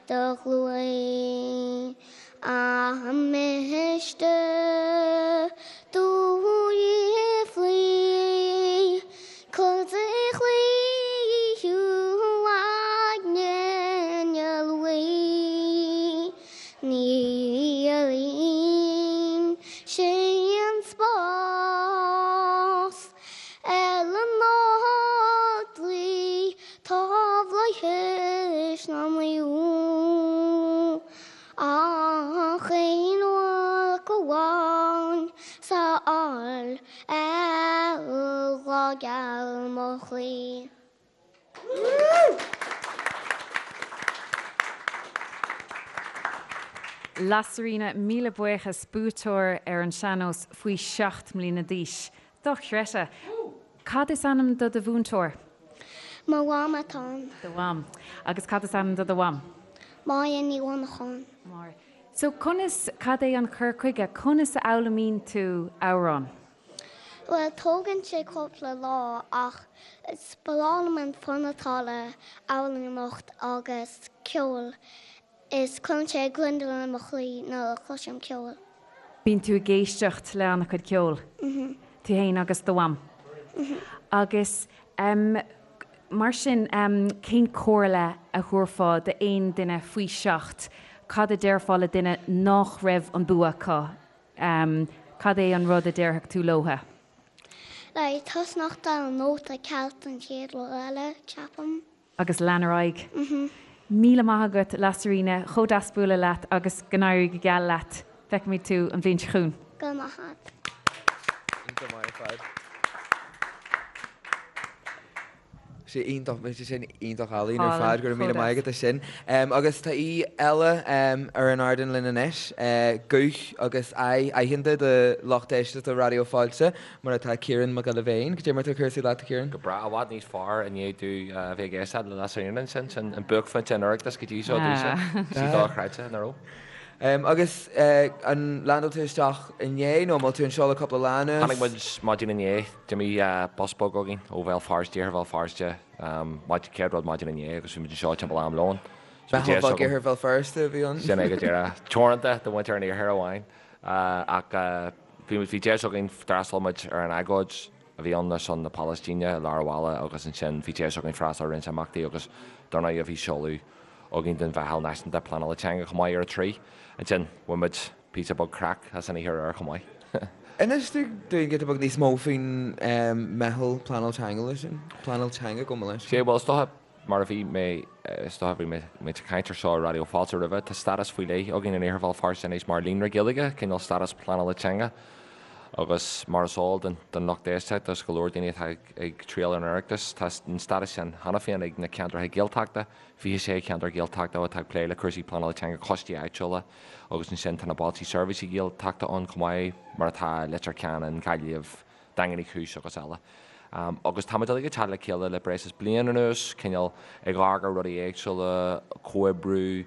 do ghluain an miste do fhiafraí cur de chroí thú aigne luí ní éiríonn sé an spás ar an Ardrí tá bhflaitheas na naomh. Ach aon mhac amháin sa fháil ar ghrá geal mo chroí. Lasairfhíona, míle buíochas, buaiteoir ar an sean-nós faoi 7 mbliana d'aois. Dochreidte! Cad is ainm do do mhúinteoir? Mo mham atá ann. Do mham. Agus cad is ainm do do mham? Máire Ní Mhonacháin. Máire. So conas, cad é an cur chuige, conas a fhoghlaimíonn tú amhrán? Bhuel, tógann sé cúpla lá ach is breá liom an fonn atá le amhránaíocht agus ceol. Is cuireann sé gliondar i mo chroí nuair a chloisim ceol. Bíonn tú ag éisteacht le an-chuid ceoil, tú fhéin agus do mham. Agus mar sin, cén comhairle a thabharfá d'aon duine faoi sheacht? Cad a déarfá le duine nach raibh an bua acu? Cad é an rud a déarfadh tú leotha? Like, tosnacht ar an nóta ceart an chéad rud eile, ceapaim. Agus lean ar aghaidh. Míle maith agat, Lasairfhíona, chomh deas bualadh leat agus go n-éirí go geal leat. Feicfimid tú an bhliain seo chugainn. Go raibh maith agat. Iontach maith ar fad. Sé iontach, bhí sé sin iontach álainn ar fad, go raibh míle maith agat as sin. Agus tá aoi eile ar an ardán linn anois, guth agus aghaidh aitheanta do lucht éisteachta Raidió Fáilte. Mar atá Ciarán Mac Giolla Bhéin. Cad é mar atá cúrsaí leat, a Chiaráin? Go breá, i bhfad níos fearr i ndiaidh domh a bheith ag éisteacht le Lasairfhíona ansin. Sin an buaicphointe an Oireachtais go dtí seo domhsa. Sí dochreidte, nach raibh? Agus an landáil tú isteach inné nó an bhfuil tú anseo le cúpla lá anuas? Tháinig muid maidin inné, d'imigh bus beag againn ó Bhéal Feirste, Iarthar Bhéal Feirste, chéad rud maidin inné agus bhí muid anseo timpeall am lóin. Meitheal Bheag Iarthar Bhéal Feirste a bhí ann. Sin é go díreach. Teoranta do mhuintir an iarthair amháin ach Bhí muid, bhí deis againn, d'fhreastail muid ar an agóid a bhí ann ar son na Palaistíne i lár an bhaile agus ansin bhí deis againn freastal ar roinnt imeachtaí agus dar ndóigh bhí seoladh againn den Mheitheal Náisiúnta Pleanála Teanga chomh maith ar a 3. Ansin bhain muid píosa beag craic as an oíche aréir chomh maith. Inis dúinn giota beag níos mó faoin Meitheal Pleanála Teanga sin, Pleanáil Teanga, gabh mo leithscéal. Sea, bhuel is dócha Mar a bhí mé, is dócha, bhí mé ag caint ar seo ar Raidió Fáilte roimhe, tá stádas faoi leith againn in Iarthar Bhéal Feirste anois mar Líonra Gaeilge, cineál stádas pleanála teanga. Agus mar is eol don lucht éisteachta agus go leor daoine atá ag triall ar an Oireachtas, tá an stádas sin cheana féin ag na ceantracha Gaeltachta, 26 cheantar Gaeltachta atá ag plé le cúrsaí pleanála teanga, coistí áitiúla agus ansin tá na Bailte Seirbhíse Gaeltachta ann chomh maith, mar atá Leitir Ceanainn, Gaillimh, Daingean Uí Chúis agus eile. Agus táimid uilig ag teacht le chéile le breis is bliain anuas, cineál ag amharc ar rudaí éagsúla, comhoibriú,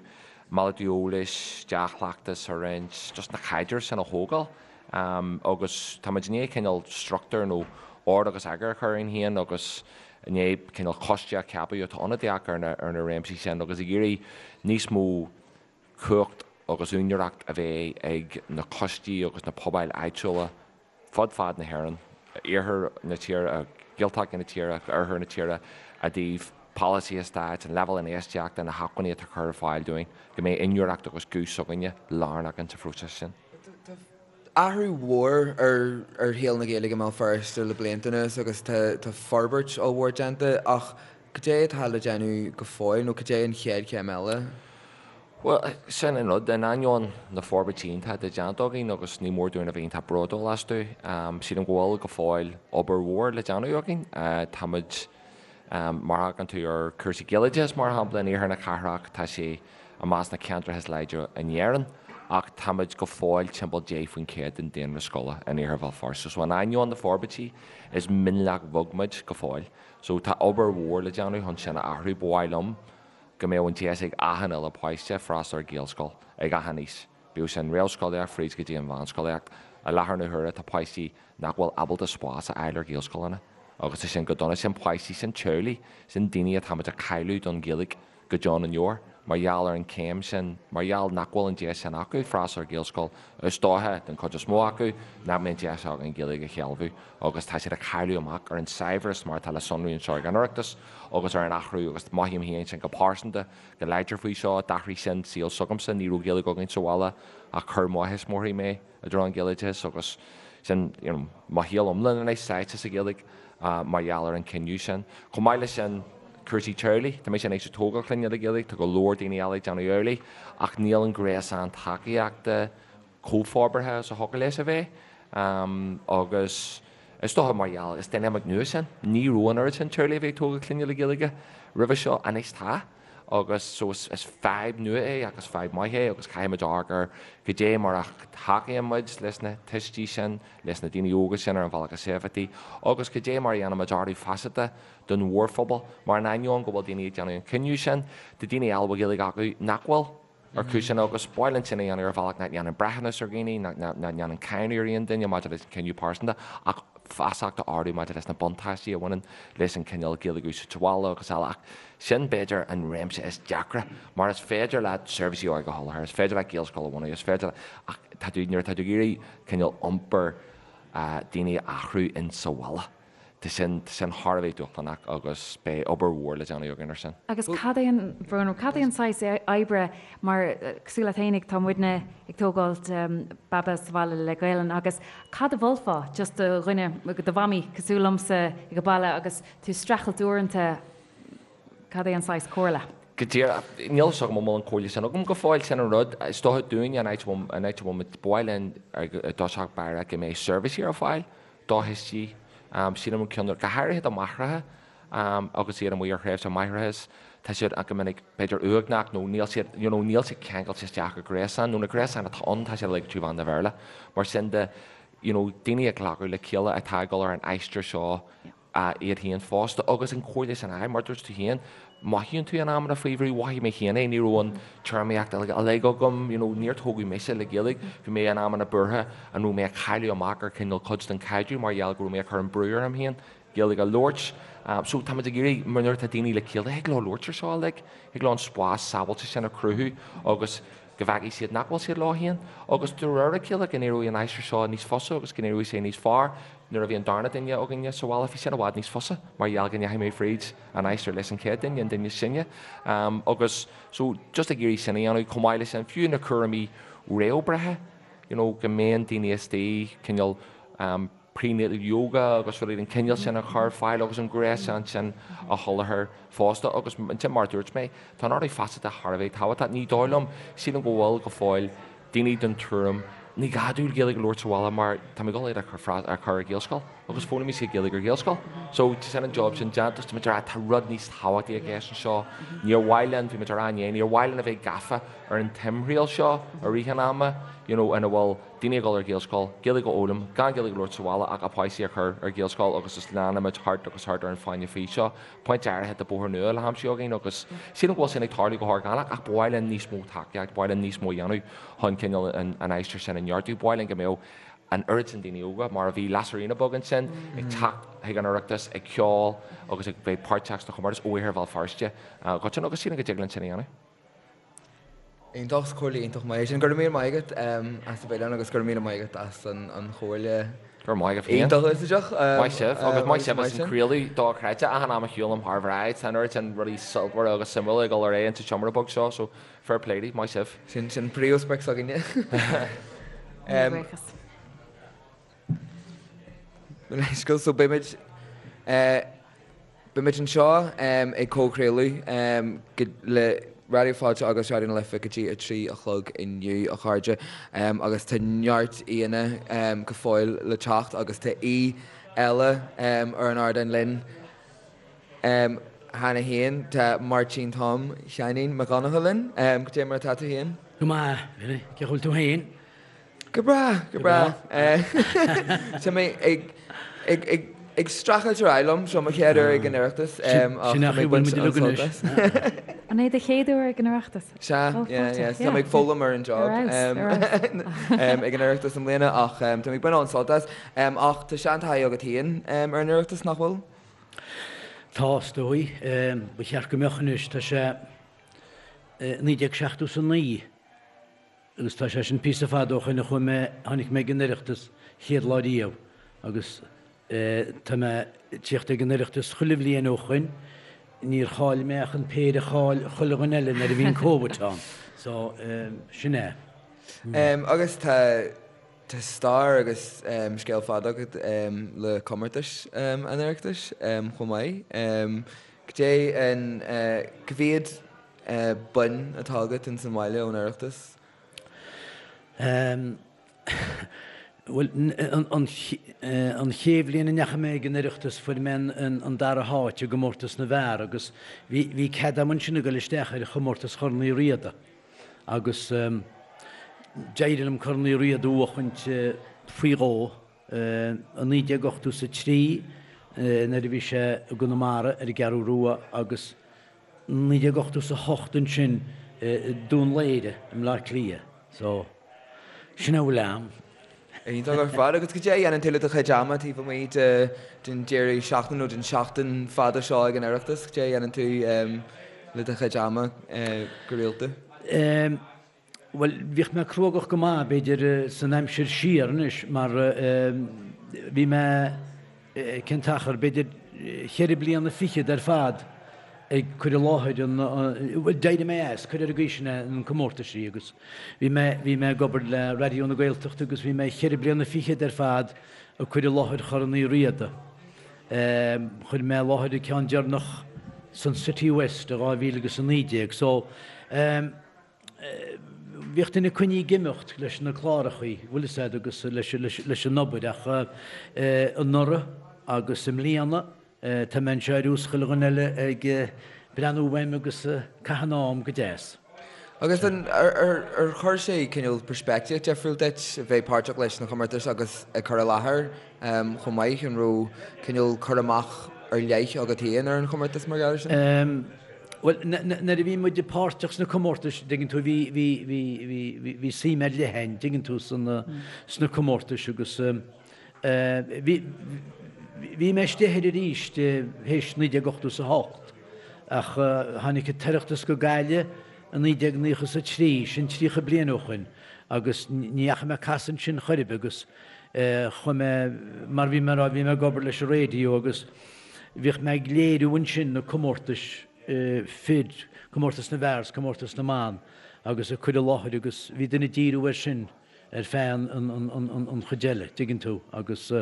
malartú eolais, dea-chleachtas a roinnt, just na caidrimh sin a thógáil. Agus táimid i ndiaidh cineál struchtúr nó ord agus eagar a chur orainn féin agus i ndiaidh cineál coiste a cheapadh atá ionadaíoch ar na ar na réimsí sin agus ag iarraidh níos mó cumhacht agus úinéireacht a bheith ag na coistí agus na pobail áitiúla fud fad na hÉireann, iarthar na tíre, Gaeltachtaí na tíre, oirthear na tíre, i dtaobh. polasaithe stáit, an leibhéal infheistíochta, na hacmhainní atá curtha ar fáil dúinn, go mbeidh inniúlacht agus guth s'againne lárnach insa phróiseas sin. Tá athrú mhór ar shaol na Gaeilge i mBéal Feirste le blianta anuas agus tá forbairt ollmhór déanta ach cad é atá le déanamh go fóill nó cad é an chéad chéim eile? Bhuel, sin an rud, in ainneoin na forbairtí iontacha atá déanta againn agus ní mór dúinn a bheith iontach bródúil astu, sílim go bhfuil go fóill obair mhór le déanamh againn. Táimid, mar a thagann tú ar chúrsaí Gaeloideachais, mar shampla, in iarthar na cathrach, tá sé i measc na ceantracha is láidre in Éirinn, ach táimid go fóill timpeall 10% den daonra scoile in iarthar Bhéal Feirste. So in ainneoin na forbairtí, is mionlach bheag muid go fóill. So tá obair mhór le déanamh chun sin a athrú. Ba mhaith liom go mbeadh an deis ag achan uile páiste freastal ar Ghaelscoil ag achan aois, bíodh sin réamhscolaíocht fríd go dtí an mheánscolaíocht. I láthair na huaire tá páistí nach bhfuil ábalta spás a fháil ar Ghaelscoileanna agus tá sin go dona. Sin páistí, sin teaghlaigh, sin daoine atáimid a chailleadh don Ghaeilge go deo na ndeor mar gheall ar an chéim sin, mar gheall nach bhfuil an deis sin acu freastal ar Ghaelscoil. Is dócha, den chuid is mó acu, nach mbeidh an deis acu an Ghaeilge a shealbhú agus tá siad ag cailleadh amach ar an saibhreas mar atá le sonrú anseo ag an Oireachtas agus ar an athrú agus mothaím féin sin go pearsanta go láidir faoi seo. D'athraigh sin saol s'agamsa, ní raibh Gaeilge againn sa bhaile ach chuir mo thuismitheoirí mé i dtreo an Ghaeloideachais agus sin you know mo shaol iomlán anois sáite sa Ghaeilge mar gheall ar an cinneadh sin. Chomh maith leis sin, cúrsaí teaghlaigh, tá mise anois ag tógáil clainne le Gaeilge, tá go leor daoine eile ag déanamh amhlaidh ach níl an gréasán tacaíochta chomh forbartha is a thiocfadh leis a bheith agus is dócha mar gheall, is dinimic nua sin, ní raibh an oiread sin teaghlaigh a bhí ag tógáil clainne le Gaeilge roimhe seo, anois tá. Agus so is fadhb nua é ach is fadhb maith é agus caithfimid amharc ar goidé mar a thacaíonn muid leis na tuistí sin, leis na daoine óga sin ar an bhealach is éifeachtaí agus goidé mar a dhéanaimid ardú feasachta don mhórphobal mar in ainneoin go bhfuil daoine ag déanamh an cinneadh sin, tá daoine eile a bhfuil Gaeilge acu nach bhfuil. Ar chúiseanna agus ba mhaith linn sin a dhéanamh ar bhealach nach ndéanann breithiúnas ar dhaoine, nach ndéanann cáineadh ar aon duine maidir leis an chinneadh pearsanta, ach feasacht a ardú maidir leis na buntáistí a bhaineann leis an cineál Gaeilge a úsáid sa bhaile agus eile. Ach sin, b'fhéidir, an réimse is deacra, mar is féidir leat seirbhísí óige a sholáthar, is féidir leat Gaelscoil a bhunú, is féidir leat, ach tá tú, nuair atá tú ag iarraidh cineál iompar daoine a athrú in sa bhaile, Tá sin, tá sin thar a bheith dúshlánach agus beidh obair mhór le déanamh againn ar sin. Agus cad é an, Bhróna, cad é an saghas oibre, mar cosúil leat fhéinig, tá muidne ag tógáilt baba sa bhaile le Gaelainn agus cad a mholfá just do dhuine, do mhamaí cosúil liomsa ag an baile agus tú ag streachailt uaireanta, cad é an saghas comhairle? Go díreach, níl a fhios agam an bhfuil an chomhairle sin agam go fóill, sin an rud. Is dócha dúinne an áit a bhfuil, an áit a bhfuil muid, ba mhaith linn i dtosach báire go mbeidh seirbhísí ar fáil do thuistí, sílim an ceann, go háirithe do mháithreacha agus iad amuigh ar thréimhse máithreachais, tá siad go minic b'fhéidir uaigneach nó níl siad, you know, níl siad ceangailte isteach i gréasán nó na gréasáin atá ann tá siad uilig trí mheán na Bhéarla. Mar sin de, you know, daoine ag glacadh le chéile atá ag dul ar an aistear seo iad féin fosta agus an chomhairle sin a, mar dúirt tú féin, mothaíonn tú in amanna faoi bhrú, mhothaigh mé féin é, ní raibh an téarmaíocht uilig agam, you know, níor tógadh mise le Gaeilge, bhí mé in amanna buartha an raibh mé ag cailleadh amach ar cineál cuid den chaidreamh mar gheall go raibh mé ag cur an brú orm féin Gaeilge a labhairt. So tá muid ag iarraidh, mar nuair atá daoine le chéile, thig leo labhairt ar seo uilig, thig leo an spás sábháilte sin a chruthú agus go bhfeicfidh siad nach bhfuil siad leo féin agus de réir a chéile go n-éireoidh an aistear seo níos fusa agus go n-éireoidh sé níos fearr. Nuair a bhí an darna duine againne sa bhaile bhí sin i bhfad níos fusa mar gheall go ndeachaigh mé fríd an aistear leis an chéad duine, an duine is sine. Agus so just ag iarraidh sin a dhéanamh chomh maith leis sin, fiú na cúraimí réamhbhreithe, you know, go mbíonn daoine istigh cineál prenatal yoga agus rudaí den chineál sin a chur ar fáil agus an gréasán sin a sholáthar fosta agus ansin mar a dúirt mé, tá an ardú feasachta thar a bheith tábhachtach. Ní dóigh liom, sílim go bhfuil go fóill daoine den tuairim ní gá dúinn Gaeilge a labhairt sa bhaile mar tá mé ag dul iad a chur a chur ar Ghaelscoil agus foghlaimeoidh siad Gaeilge ar Ghaelscoil. So tá sin an job sin déanta agus tá muid ag rá tá rud níos tábhachtaí i gceist anseo. Níor mhaith linn, bhí muid ag rá inné, níor mhaith linn a bheith gafa ar an timthriall seo i rith an ama, you know, ina bhfuil daoine ag dul ar Ghaelscoil, Gaeilge a fhoghlaim, gan Gaeilge a labhairt sa bhaile ach a bpáistí a chur ar Ghaelscoil agus is leanaimid thart agus thart ar an fáinne fí seo. Pointe áirithe tá bóthar nua le haimsiú againn agus sílim go bhfuil sin ag tarlú go horgánach ach ba mhaith linn níos mó tacaíocht, ba mhaith linn níos mó a dhéanamh chun cineál an aistear sin a neartú. Ba mhaith linn go mbeadh an oiread sin daoine óga, mar a bhí Lasairfhíona Beag ansin, ag teacht chuig an Oireachtas, ag ceol agus ag bheith páirteach sna comórtais ó Iarthar Bhéal Feirste go dtí agus sílim go dtig linn sin a dhéanamh. Iontach, is comhairle iontach maith é sin. Go raibh míle maith agat as a bheith linn agus go raibh míle maith agat as an chomhairle. Go raibh maith agat féin. Iontach úsáideach. Maith sibh, agus maith sibh as an craoladh dochreidte achan am a shiúlaim thar bhráid. Tá an oiread sin rudaí sultmhara agus suimiúla ag dul ar aghaidh insa tseomra beag seo, so fair play daoibh, maith sibh. Sin sin príomhsprioc s'againne. Buíochas. Leithscéal, so beimid beimid anseo ag comhchraoladh le Raidió Fáilte agus Raidió na Life go dtí 3 a chlog inniu, a chairde, agus tá neart aíonna go fóill le teacht agus tá aoi eile ar an ardán linn cheana féin. Tá Máirtín Tom Sheáinín Mac Dhonncha linn. Cad é mar atá tú féin? Go maith, Billy. Cén chaoi a bhfuil tú féin? Go breá, go breá. Tá mé ag, ag, ag, ag streachailt ar aghaidh liom, seo mo chéad uair ag an Oireachtas ach tá mé ag baint an-sult as. An é do chéad uair ag an Oireachtas? Sea, yeah, yeah. Tá mé ag foghlaim ar an job ag an Oireachtas i mbliana ach tá mé ag baint an-sult as. Ach tá seantaithí agat féin ar an Oireachtas, nach bhfuil? Tá, is dóigh. Ba cheart go mbeadh anois. Tá sé 1979. Agus tá sé sin píosa fada ó shoin a chuaigh mé, tháinig mé ag an Oireachtas chéad lá riamh agus tá mé ag tíocht ag an Oireachtas chuile bhliain ó shoin, níor chaill mé ach an péire a chaill chuile dhuine eile nuair a bhí an Covid ann. So, sin é. Agus tá, tá stair agus scéal fada agat le comórtais an Oireachtais chomh maith. Cad é an, cá mhéad boinn atá agat ins an bhaile ón Oireachtas? Bhuel, an chéad bhliain a ndeachaigh mé ag an Oireachtas fuair mé an dara háit i gcomórtas na bhfear agus bhí cead agam ansin a dhul isteach ar chomórtas Chorn Uí Riada agus d'éirigh liom Corn Uí Riada a bhuachaint faoi dhó i 1983 nuair a bhí sé i gConamara ar an gCeathrú Rua agus 1988 ansin i Dún Laoghaire i mBleá Cliath. So, sin a bhfuil a'm. Iontach ar fad. Agus cad é a dhéanann tú le do chuid ama taobh amuigh de den deireadh seachtaine nó den seachtain fada seo ag an Oireachtas? Cad é a dhéanann tú le do chuid ama go rialta? Bhuel, bhíodh mé cruógach go maith, b'fhéidir, san aimsir siar anois, mar bhí mé, cén t-achar, b'fhéidir cheithre bliana fichead ar fad ag cur i láthair an, bhuel, d'éirigh mé as, cuir ar an gcaoi sin é, an comórtaisí agus bhí mé, bhí mé ag obair le Raidió na Gaeltachta agus bhí mé cheithre bliana fichead ar fad ag cur i láthair Chorn Uí Riada. Chuir mé i láthair an ceann deireanach san Citywest i 2019 so, Bhíodh duine coinnithe ag imeacht leis na clárachaí, bhfuil fhios a'd, agus leis an obair ach anuraidh agus i mbliana tá mé anseo ar nós chuile dhuine eile ag breathnú uaim agus caitheamh an am go deas. Agus an, ar chuir sé cineál peirspictíocht difriúil duit a bheith páirteach leis na comórtais agus ag cur i láthair chomh maith? An raibh cineál cur amach ar leith agat féin ar an chomórtas mar gheall air sin? Bhuel, nuair a bhí muid páirteach sna comórtais, dtuigeann tú, bhí, bhí, bhí, bhí, bhí, bhí suim ar leith againn, dtuigeann tú, sna, sna comórtais agus bhí, bhí mé istigh air arís théis 1988 ach tháinig an tOireachtas go Gaillimh i 1993, sin 30 bliain ó shoin, agus ní dheachaigh mé ag casadh ansin chor ar bith agus chuaigh mé, mar bhí mé a rá, bhí mé ag obair leis an raidió agus Bhíodh mé ag léiriú ansin na comórtais fir, comórtas na bhfear 's comórtas na mban agus ag cur i láthair agus bhí duine ag díriú air sin ar feadh an chuid eile, dtuigeann tú, agus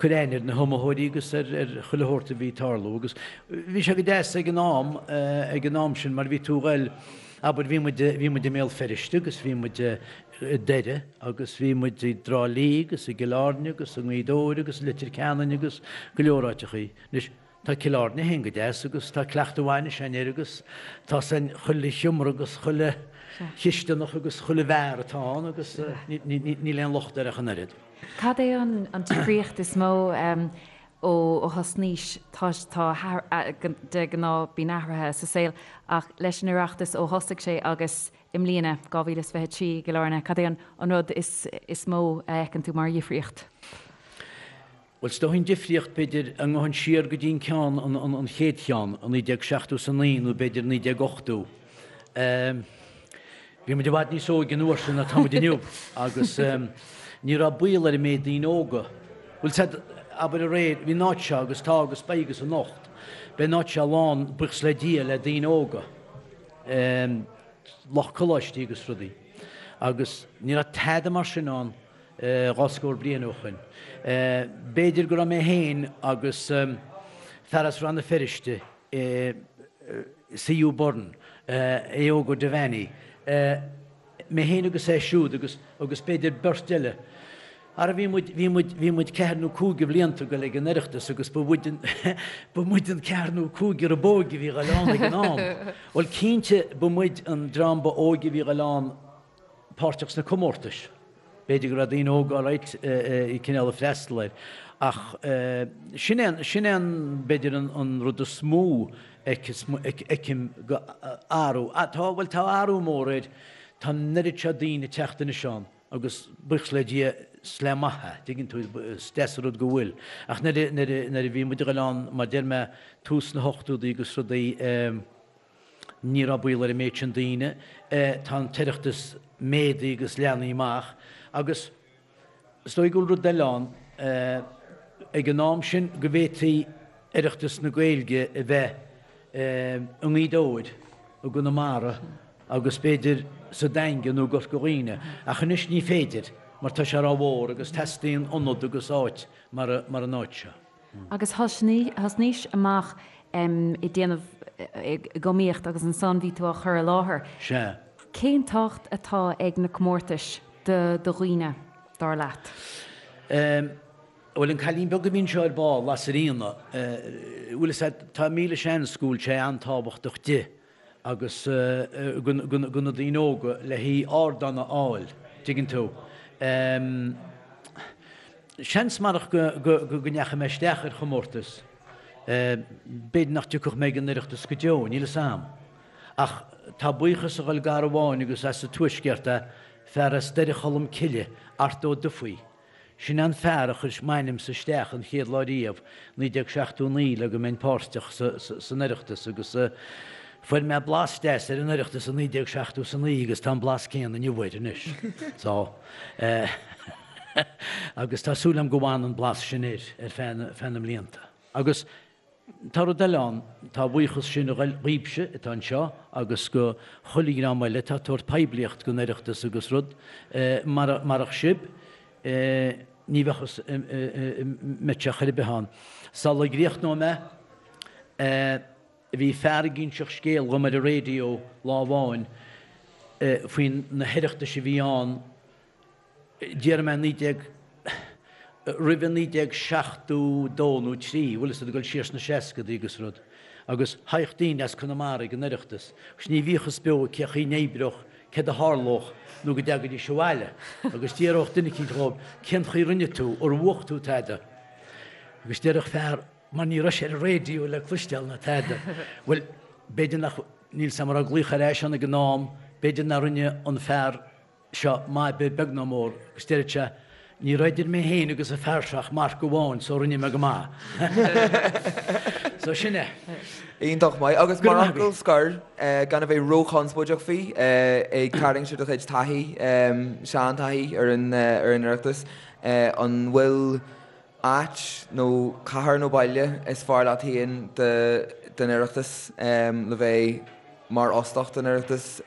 cur aithne ar na hiomaitheoirí agus ar chuile shórt a bhí ag tarlú agus bhí sé go deas ag an am, ag an am sin mar bhí tú a ghoil, abair bhí muid, bhí muid i mBéal Feirste agus bhí muid i nDoire agus bhí muid i dTrá Lí agus i gCill Airne agus i nGaoth Dobhair agus i Leitir Ceanainn agus go leor áiteachaí. Anois, tá Cill Airne féin go deas agus tá cleachtadh mhaith anois againn air agus tá 's againn chuile sheomra agus chuile chisteanach agus chuile bheár atá ann agus níl aon locht air ach an oiread. Cad é an difríocht is mó ó thosnaís? Tá, de ghnáth bíonn athruithe sa saol ach leis an Oireachtas ó thosaigh sé agus I mbliana, 2023, i gCill Airne, cad é an rud is mó a fheiceann tú mar dhifríocht? Bhuel, is dóigh an difríocht, b'fhéidir, dá ngabhfainn siar go dtí an ceann, an chéad cheann, i 1979 nó b'fhéidir 1980. Bhí muid i bhfad níos óige an uair sin ná tá muid inniu agus ní raibh baol ar an méid daoine óga. Bhuel, said, abair aréir, bhí an áit seo agus tá agus beidh agus anocht, beidh an áit seo lán, buíochas le Dia, le daoine óga, lucht coláistí agus rudaí. Agus ní raibh tada mar sin ann 20 scór bliain ó shoin. B'fhéidir go raibh mé féin agus fear as Rann na Feirste, C.U. Byrne, Aodh Óg Ó Devaney, mé féin agus é siúd agus, agus b'fhéidir beirt eile. Ara bhí muid, bhí muid, bhí muid ceathair nó cúig de bhlianta ag goil ag an Oireachtas agus ba mhuid an, ba muid an ceathair nó cúigear ab óige a bhí ag goil ann ag an am. Bhuel cinnte ba muid an dream ba óige a bhí ag goil ann páirteach sna comórtais. B'fhéidir go raibh daoine óga alright cineál ag freastal air ach sin é an, sin é an, b'fhéidir an rud is mó a fheicim go athrú. Tá, bhuel tá athrú mór air, tá an oiread seo daoine ag teacht anois ann agus buíochas le Dia is le maith é, tuigeann tú, is deas an rud go bhfuil. Ach nuair a, nuair a, nuair a bhí muid ag dul ann, mar deir mé, tús na hochtódaí agus rudaí, Ní raibh baol ar an méid sin daoine. Tá an tOireachtas méadaithe agus leathnaithe amach agus is dóigh go bhfuil rud eile ann, ag an am sin go bhféadfaí Oireachtas na Gaeilge a bheith i nGaoth Dobhair, i gConamara agus b'fhéidir sa Daingean nó i gCorca Dhuibhne ach anois ní féidir mar tá sé rómhór agus teastaíonn ionad agus áit mar an áit seo. Agus thosnaís amach ag déanamh, ag iomaíocht agus ansan bhí tú á chur i láthair. Sea. Cén tábhacht atá ag na comórtais do dhaoine, dar leat? Bhuel, an cailín beag a bhí anseo ar ball, Lasairfhíona, bhuel, is ea, tá míle seans go bhfuil sé an-tábhachtach di. agus go na daoine óga le haghaidh ardán a fháil, dtuigeann tú. Seans marach go ndeachaigh mé isteach ar chomórtas, b'fhéidir nach dtiocfadh mé ag an Oireachtas go deo, níl fhios a'm. Ach tá buíochas a dhul d'fhear amháin agus as an Tuaisceart é, fear as Doire Cholm Cille, Art Ó Dufaigh. Sin an fear a chuir m'ainmse isteach an chéad lá riamh, 1979, le go mbeinn páirteach san Oireachtas agus fuair mé blas deas ar an Oireachtas i 1979 agus tá an blas céanna inniu air anois. So, agus tá súil agam go bhfanann an blas sin air ar feadh na mblianta. Agus Tá rud eile ann, tá a bhuíochas sin a ghoil dhaoibhse atá anseo agus go chuile dhream eile atá ag tabhairt poiblíocht don Oireachtas agus rud, marach sibh ní bheadh fhios mbeadh sé chor ar bith ann. Sula gcríochnóidh mé, bhí fear ag inseacht scéal dhom ar an raidió lá amháin faoi na hOireachtais a bhí ann, déarfaidh mé 19, roimhe 1972 nó 3, bhfuil fhios agat, ag dul siar sna seascadaí agus rud, agus thagadh daoine as Conamara ag an Oireachtas agus ní bhíodh fhios beo cé chaoi n-oibreodh, céard a tharlódh nó go dtagaidís abhaile agus d'fhiafródh duine eicínt dhóibh cén chaoi rinne tú, ar bhuaigh tú tada? Agus déarfadh fear, mar ní raibh sé ar an raidió le cloisteáil ná tada, bhuel, b'fhéidir nach, níl 's a'm an raibh glaoch ar ais ann ag an am, b'fhéidir nár rinne an fear seo maith beag ná mór agus deireadh sé, ní raibh idir mé féin agus an fear seo ach marc amháin so rinne mé go maith. So sin é. Iontach maith. Agus mar fhocal scoir, gan a bheith róchonspóideach faoi, ag tarraingt ar do chuid taithí, seantaithí ar an Oireachtas, an bhfuil áit nó cathair nó baile is fearr leat féin don Oireachtas le bheith mar óstach don Oireachtas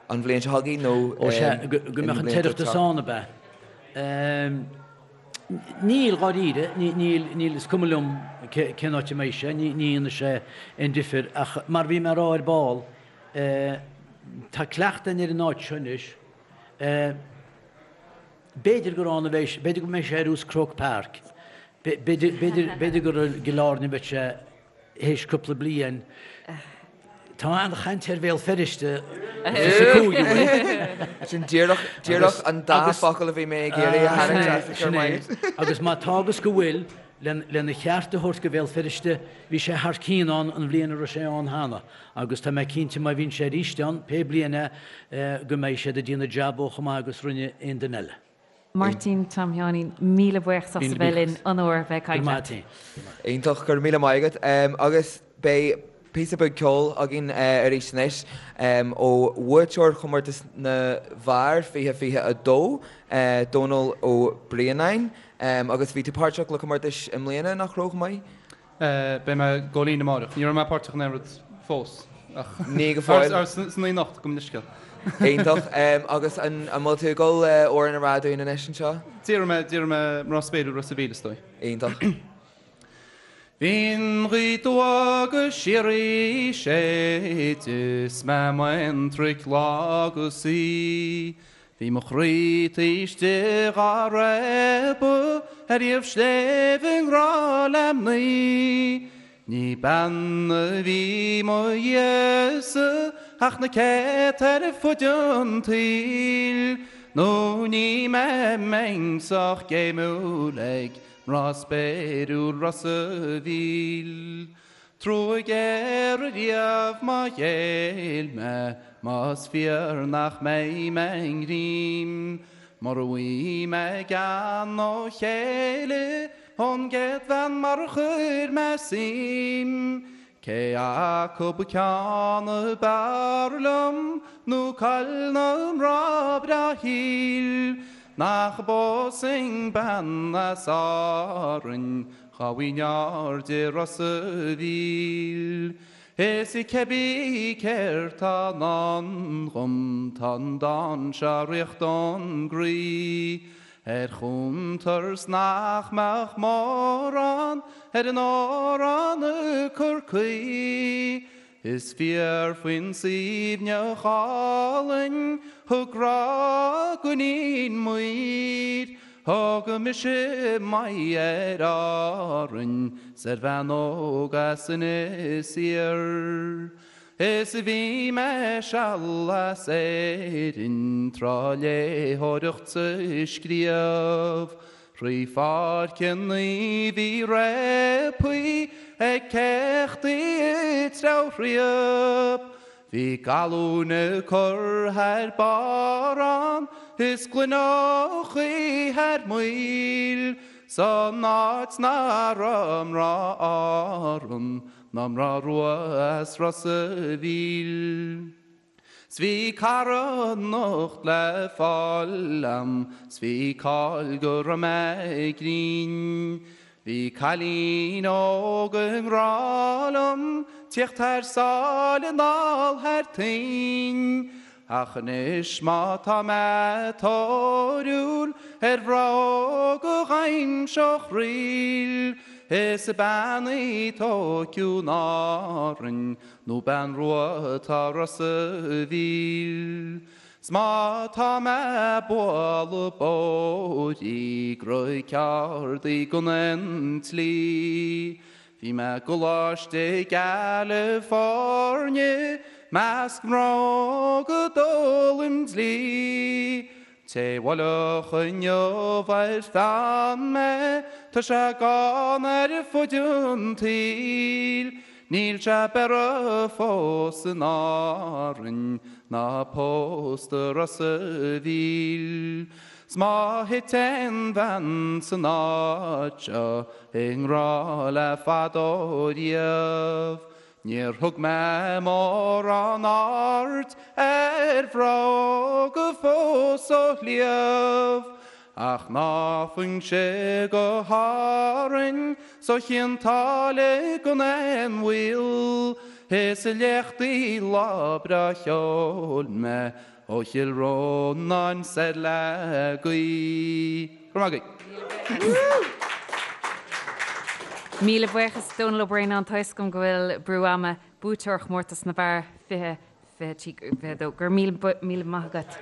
an bhliain seo chugainn nó Ó sea, go mbeadh an tOireachtas ann, ab ea? Níl, dháiríre, níl, níl, is cuma liom cén áit a mbeidh sé, ní dhéanfaidh sé aon difear ach mar bhí mé a rá ar ball, tá cleachtadh againn ar an áit seo anois, B'fhéidir gur ann a bheidh sé, b'fhéidir go mbeidh sé ar Croke Park, b'fhéidir, b'fhéidir, b'fhéidir gur i gCill Airne a bheidh sé théis cúpla bliain. Tá an-chaint ar Bhéal Feirste sa chúigiú bhfuil. Sin díreach, díreach an dá focal a bhí mé ag iarraidh a tharraingt as Sin é. Agus má tá agus go bhfuil, lena cheart a thabhairt go Bhéal Feirste, bhí sé thar cionn ann an bhliain a raibh sé ann cheana agus tá mé cinnte má bhíonn sé arís ann, pé bliain é, go mbeidh siad ag déanamh jab chomh maith agus rinne aon duine eile. Máirtín Tom Sheáinín, míle buíochas as a bheith linn, onóir a bheith ag caint leat. Iontach, go raibh míle maith agat. Agus beidh. píosa beag ceoil againn arís anois ó bhuaiteoir Chomórtas na bhFear 2022, Dónal Ó Braonáin. Agus bhí tú páirteach le comórtais i mbliana, nach raibh, chomh maith? Beidh mé ag dul linn amárach. Ní raibh mé páirteach in aon rud fós ach. Ní go fóill. San oíche anocht, gabh mo leithscéal. Iontach. Agus an bhfuil tú ag dul amhrán a rá dúinn anois anseo? Déarfaidh mé, déarfaidh mé Mná Spéiriúil Ros a' Mhíl, is dóigh. Iontach. Bhí an ghaoth dubh go síoraí séide 's mé m'aontraic lá agus oíche. Bhí mo chroí taobh istigh dhá réabadh ar thaobh sléibhe i ngrá le mnaoi. Ní bean a bhí mo dhiaidh-sa ach na céadta ar fuid an tsaoil, nó ní mbeinn sách géimiúil ag Mná spéiriúil Ros a' Mhíl. Trua géar ariamh má ghéill mé, más fíor nach mbeidh mé i ngreim. Mura bhfaighidh mé gean ó chéile ón gcéad bhean mar a chuir mé suim. Cé acu ceann ab fhearr liom nó caill na mná breá shaoil nach bpósfainn bean as Árainn dhá bhfaighinn aird i Ros a' Mhíl. Is cébí céard tá i ndán dhom tá an dán seo richt ón gcroí. Ar chuntar 's nach mbeadh mórán ar an amhrán ag cur caoi. Is fíor faoin suaimhneach álainn thug grá d'iníon maoir. Thug mise m'aghaidh ar Árainn 's ar bhean óg as Inis Oírr. Is bhí mé seal as Éirinn tráth léitheoireacht 's ag scríobh. Thrí pháirceanna bhí réabthaí ag céachtaí ag treabhthriap. Bhí galúin ag cur thar barr ann is gloineochaí thar maoil. San áit nach raibh mná Árann Ná mná rua as Ros a' Mhíl. 'S bhí cara anocht le fáil a'm 's bhí cáil go raibh mé grinn. Bhí cailín óg i ngrá liom tíocht thar sáile anall thar toinn. Ach anois má tá mé tóiriúil ar mhná óga dh'aimseodh ríl, is bean í Tóiceo in Árainn nó bean rua atá Ros a' Mhíl. 'S má tá mé ag bualadh bodhraí gura ceárd í gan an tslí, Bhí mé i gColáiste i gCalifornia 'measc mná óga d'fhoghlaim dlí. Té bhuailfeadh inniu ar pheann mé tá sé gann ar fud an tsaoil. Níl sé beirthe fós in Árainn ná pósta Ros a' Mhíl. 'S má thit aon bhean san áit seo i ngrá le fadó riamh, níor thug mé mórán aird ar mhná óga fós ó shliabh, ach ná faighinn-se go hÁrainn 's ó Chionn tSáile gan aon mhoill, is i léachtaí lá breá cheoil mé Ó Chill Rónáin soir le gaoth. Go raibh maith agaibh. Míle buíochas Dónal Ó Braonáin, tá fhios agam go bhfuil brú ama, buaiteoir chomórtas na bhfear 20, 23, 22. Go raibh míle, míle maith agat.